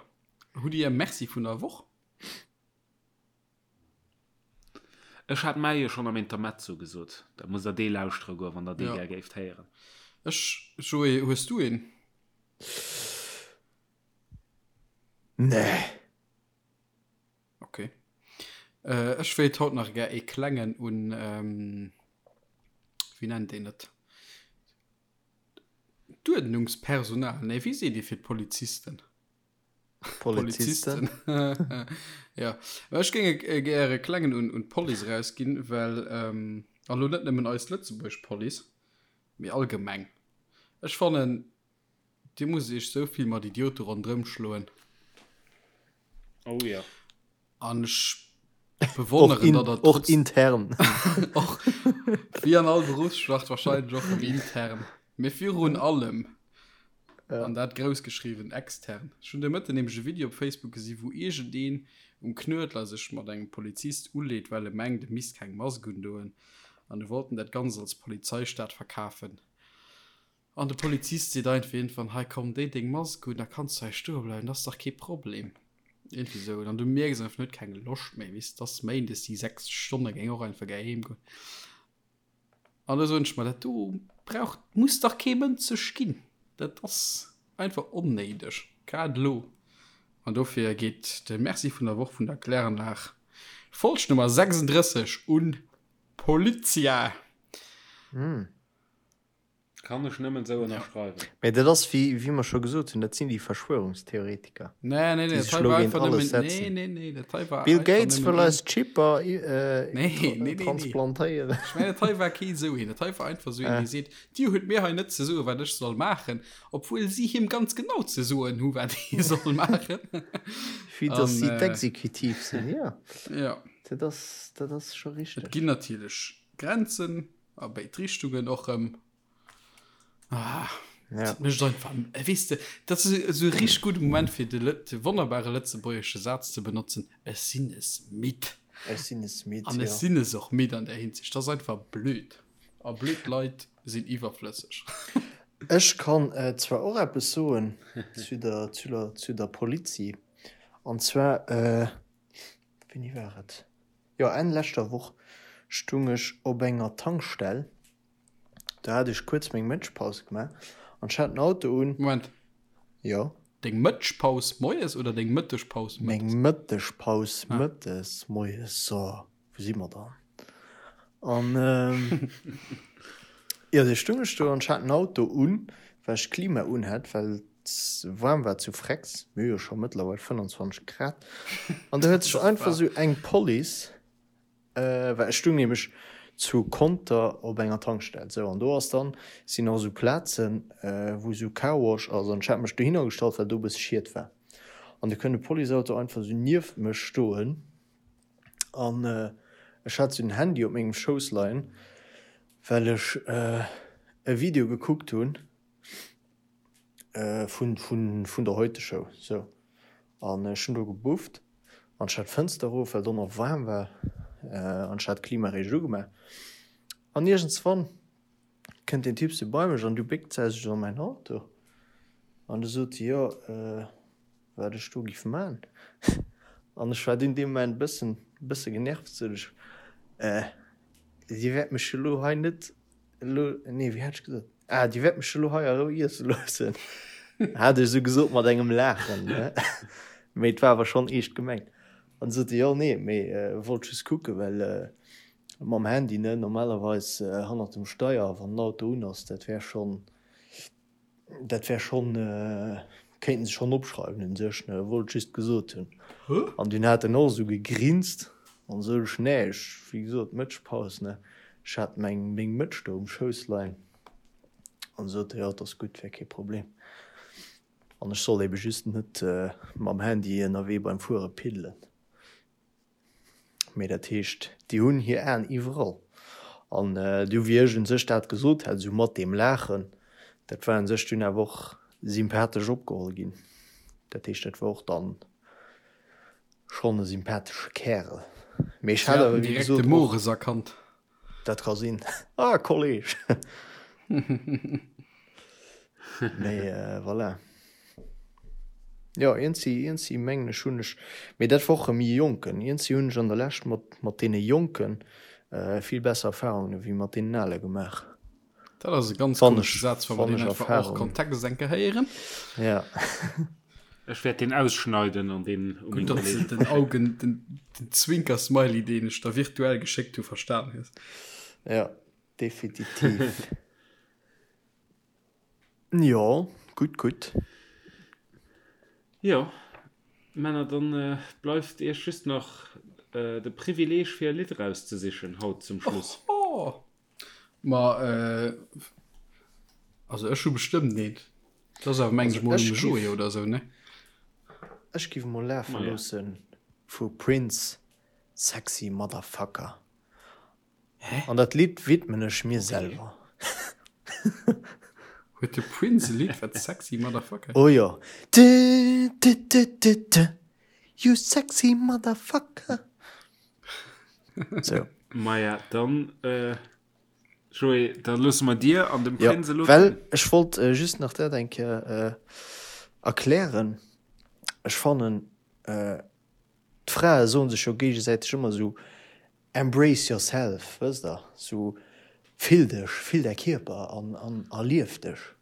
B: hutt Dir e Merci vun der Woch?
A: Ech hat mäi jo schonn am Intermezzo gesot. Da musst der dee lauschtere goen, wann der dee gär géift héieren.
B: Ech, Joé, hues du een?
C: Nee.
B: Ok. Ech wéilt haut nach gär ee klengen un, wéi nennt een et, d'Uerdnungspersonal, nee, wéi seet ee fir d'Polizisten?
C: Polizisten.
B: Ja, mä ech géing e gär e klengen un un d'Police erausginn, well, an elo net nëmmen eis lëtzebuergesch Police, mee allgemeng, ech fannen, Dir musst iech sou vill mat Idiote ronderëm schloen.
A: Oh ja.
B: An ech bewonneren, datt der
C: Och intern.
B: Och wéi an all Berufsschlacht wahrscheinlech och rëm intern. Mee virun allem, an dat grouss geschriwwen, extern. Ech hunn de Mëtten nämlech e Video op Facebook gesi wou iergendeen um Knuedler sech mat engem Polizist uleet, well e mengt e misst keng Mask undoen. An e wollt en dat Ganzt als Polizeistaat verkafen. An de Polizist seet einfach iergendwann, hei komm, déi deng Mask un, da kanns du hei stoe bleiwen, dat ass dach kee Problem. Iergendwéi esou. An du mierks einfach, en huet keng Loscht méi, weess, et ass méindes, déi 6 Stonne géing och einfach gär heem goen. An da soen ech mer, dat do brauch, muss dach kee Mënsch sech ginn. Dat ass einfach onnéideg, grad elo. An dofir geet de Merci vun der Woch vun der Kläranlag, Folg Nummer 36 un d'Polizia.
A: Kann ech nëmmen esou ënnerschreiwen.
C: Mee dat ass, wéi, wéi mer scho gesot hunn, dat sinn déi Verschwörungstheoretiker,
B: Nee, nee, nee,
C: déi
B: dat
C: sech
B: hei
C: elo
B: war
C: géint
B: einfach
C: alles
B: nëmmen, nee,
C: setzen.
B: nee, nee, dat hei war
C: Bill
B: einfach
C: Gates
B: nëmmen
C: wëll
B: een,
C: eis Chipper äh,
B: nee, nee, nee, nee.
C: transplantéieren.
B: Ech mengen, dat hei war kee esou een. Dat hei war einfach esou een, dee seet, Dir hutt mir hei net ze soen, wat ech soll maachen, obwuel si him ganz genau ze soen hu, wat hie soll maachen.
C: Vue dass
B: An,
C: si
B: äh,
C: d'Exekutiv sinn, jo.
B: ja.
C: Dat ass, dat ass scho
B: Et
C: richteg.
B: ginn natierlech Grenzen a béid Richtungen och erëm. Ah,
C: Ja.
B: dat mécht einfach, äh, weess de, dat ass esou e richteg gudde Moment fir de, Lë- de wonnerbare lëtzebuergesche Saz ze benotzen, Ech sinn es midd.
C: Ech sinn es midd,
B: An ech
C: jo.
B: sinn es och midd an där Hinsicht. Dat ass einfach blöd. A blöd Leit sinn iwwerflësseg.
C: Ech kann äh, zwar och eppes soen zu der, zu der, zu der Polizi. An zwar, äh, wéini war et? Jo, Enn leschter Woch stung ech op enger Tankstell. Do hat ech kuerz meng Mëtschpaus gemaach an ech hat den Auto un.
B: Moment.
C: Jo.
B: Deng Mëtschpaus moies oder deng Mëttegpaus mëttes?
C: Meng Mëttegpaus mëttes, moies, so, wou si mer dann? An jo, du stung ech do an ech hat den Auto un, well ech d'Klima un hat, well et waarm war zu Frex, mir hu jo scho mëttlerweil 25 Grad. An do huet sech einfach esou eng Police Well ech stung nämlech zu Conter op enger Tankstell, sou, an do ass dann, sinn och sou Plazen, wou sou Carwash ass, an ech hat mech dohinner gestallt, well do e bësse Schiet war, an du kënnt e Policeauto einfach sou nieft mech stoen, an ech hat sou den Handy op mengem Schouss leien. Well ech e Video gekuckt hunn vun vun der Heute Show sou an ech hunn do gebufft an ech hat d'Fënster erof well do nach waarm war an ech hat d'Klima eréischt ugemaach an iergendswann kënnt deen Typ sou bei mech an du béckt se sech an mäin Auto an du sot se jo wat ech do giff man an ech war dunn dee Moment bëssen bësse genervt sot ech Dir wäert mech elo hei net elo, nee, wéi hat ech gesot? Ah, Dir wäert mech elo hei a Rou iesse loossen, hat ech esou gesot mat engem Laachen, ne? Mee et war awer schonn eescht gemengt. An du sot e, jo, nee, mee wollt just kucken, well mam Handy, ne, normalerweis hannert dem Steier, wann den Auto un ass, dat wär schonn, Dat wär schonn, kéinten se schonn opschreiwen un sech, ne, wollt just gesot hunn. An dunn hat en och esou gegrinst an sou ech, nee, ech, wéi gesot, Mëtschpaus, ne, ech hat meng, meng Mëtsch do um Schouss leien. An sot e, jo, et ass gutt, wär kee Problem. An ech soll ebe just net mam Handy ënnerwee beim Fuere piddelen. Mee dat heescht, déi hunn hir Aen iwwerall. An du, wéi ech un sech dat gesot hat, esou mat deem Laachen, dat war un sech dunn awer och sympathesch opgeholl ginn. Dat heescht, dat war och dann schonn e sympathesche Kärel.
B: Mee ech hat awer, wéi gesot, och. Direkt de Mores erkannt.
C: Dat ka sinn. Ah, Kolleg! Mee voilà. Jo, iergendsi, iergendsi mengen ech hunn ech, mee dat war och erëm e Jonken, iergendsi hunn ech an der Lescht mat, mat deene Jonken vill besser Erfahrungen ewéi mat deenen Ale gemaach.
B: Dat ass e ganz komesche Saz, wa mer deen einfach hors Kontext eng Kéier héieren.
C: Ja.
A: Ech wäert deen ausschneiden an deen
B: u meng Kolleegen. Gutt, datt s de den Augen, den Zwinker-Smiley, deen ech der virtuell geschéckt hu, verstan hues.
C: Ja, definitiv. Jo, gutt, gutt.
A: Jo, Männer, dann bleift iech just nach de Privileeg fir e Lidd erauszesichen haut zum Schluss.
B: Oho! Ma also ech hu bestëmmt eent. Dat ass awer mengen ech mol um Joé oder esou, ne?
C: Ech giff mol lafe loosse vu Prince Sexy Motherfucker. Hä? An dat Lidd widmen ech mir selwer.
B: Huet de Prince e Lidd wat Sexy Motherfucker?
C: Oh jo. Du du du du du You sexy motherfucker.
A: Sou. Maja, dann, Joé, da loosse mer dir an dem
C: Prinz elo. Well ech wollt just nach dat eng Kéier erklären. Ech fannen, d'Frae soen sech jo géigesäiteg ëmmer esou, Embrace yourself, wësst der, sou fill dech, fill däi Kierper an an erlief dech.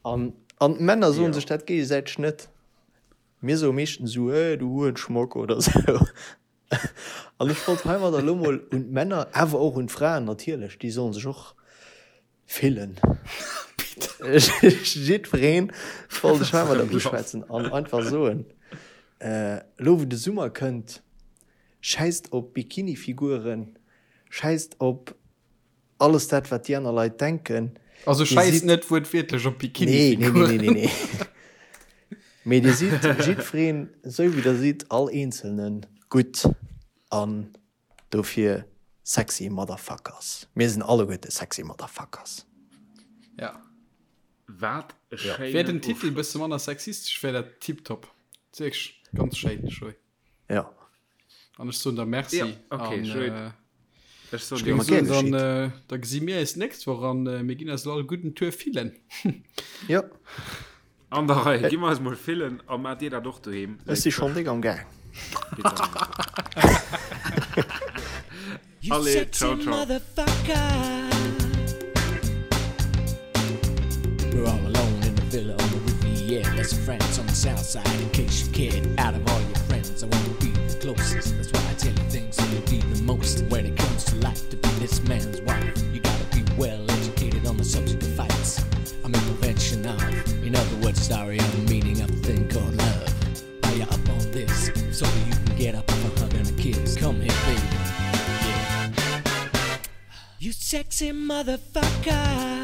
C: An an d'Männer soen sech dat géigesäiteg net. Mir soe meeschtens esou, Hey, du Hurenschmock oder sou. An ech wollt heimadder elo mol un d'Männer, awer och un d'Fraen natierlech, déi sollen sech och fillen, jiddwereen wollt ech heimadder uschwätzen an einfach soen, elo wou de Summer kënnt, schäisst op Bikinifiguren, schäisst op alles dat wat déi aner Leit denken.
B: Also schäisst net wuertwiertlech op Bikinifiguren.
C: Nee, nee, nee, nee, nee. Mee dir sidd jiddwereen esou wéi der sidd, all Eenzelnen, gutt an dofir sexy Motherfuckers. Mir sinn alleguerte sexy Motherfuckers.
B: Ja.
A: Wat e
B: schéinen Wär den Titel e bësse manner sexistesch, wär dat tiptop. Wierklech ganz schéin, Joé.
C: Ja.
B: An ech soen der Merci.
A: Ja, okay,
B: an,
A: schön.
B: Äh,
A: Ech soen
B: ech
A: dir
B: géing
A: och
B: soen,
A: Merci.
B: dann, äh, da gesi mir eis d'nächst Woch an äh, mir ginn eis all gudden Tour fillen.
C: Ja.
A: An der Rei, gi mer eis mol fillen a maacht dir dat och doheem.
C: Ech si schonn déck am Gaang.
A: Allez, ciao, ciao.
F: We're all alone in the villa on the Riviera. That's France on the south side. In case you cared, out of all your friends, I wanna be the closest. That's why I tell you things that you need the most. When it comes to life, to be this man's wife, you gotta be well educated on the subject of fights. I'm in prevention of, in other words, sorry, I'm the meaning of the thing called love. Are you up on this? If so, you can get up off a hug and a kiss. Come here, baby. Yeah. You sexy motherfucker.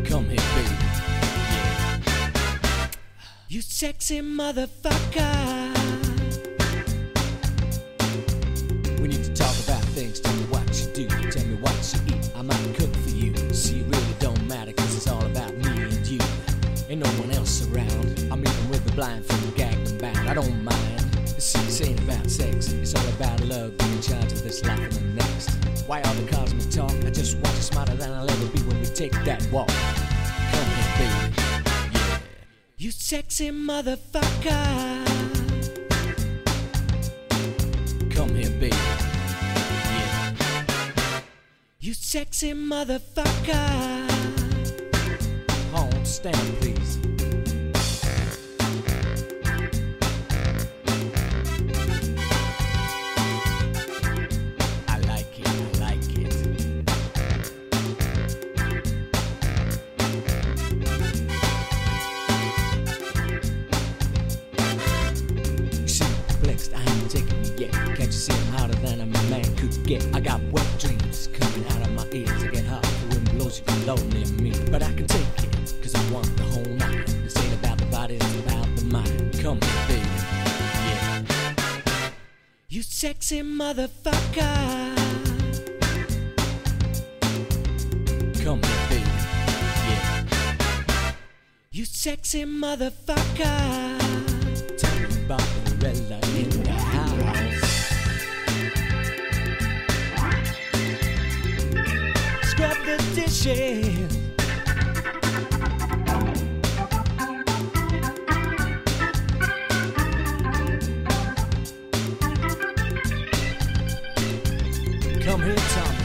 F: Come here, baby. Yeah. You sexy motherfucker. We need to talk about things. Why all the cosmic talk? I just want you smarter than I'll ever be when we take that walk. Come here, baby. Yeah. You sexy motherfucker. Come here, baby. Yeah. You sexy motherfucker. Hold stand, please. I like it, I like it. You seem perplexed, I ain't taking me yet. Can't you see I'm hotter than a man could get? I got wet dreams coming out of my ears. I get hot, the wind blows, you can blow near me. But I can take it, cause I want the whole night. This ain't about the body, it's about the mind. Come here, baby. Yeah. You sexy motherfucker. Come here, baby. Yeah. You sexy motherfucker. Tell me about Barbarella in the house. Scrub the dishes. Come here, Tommy.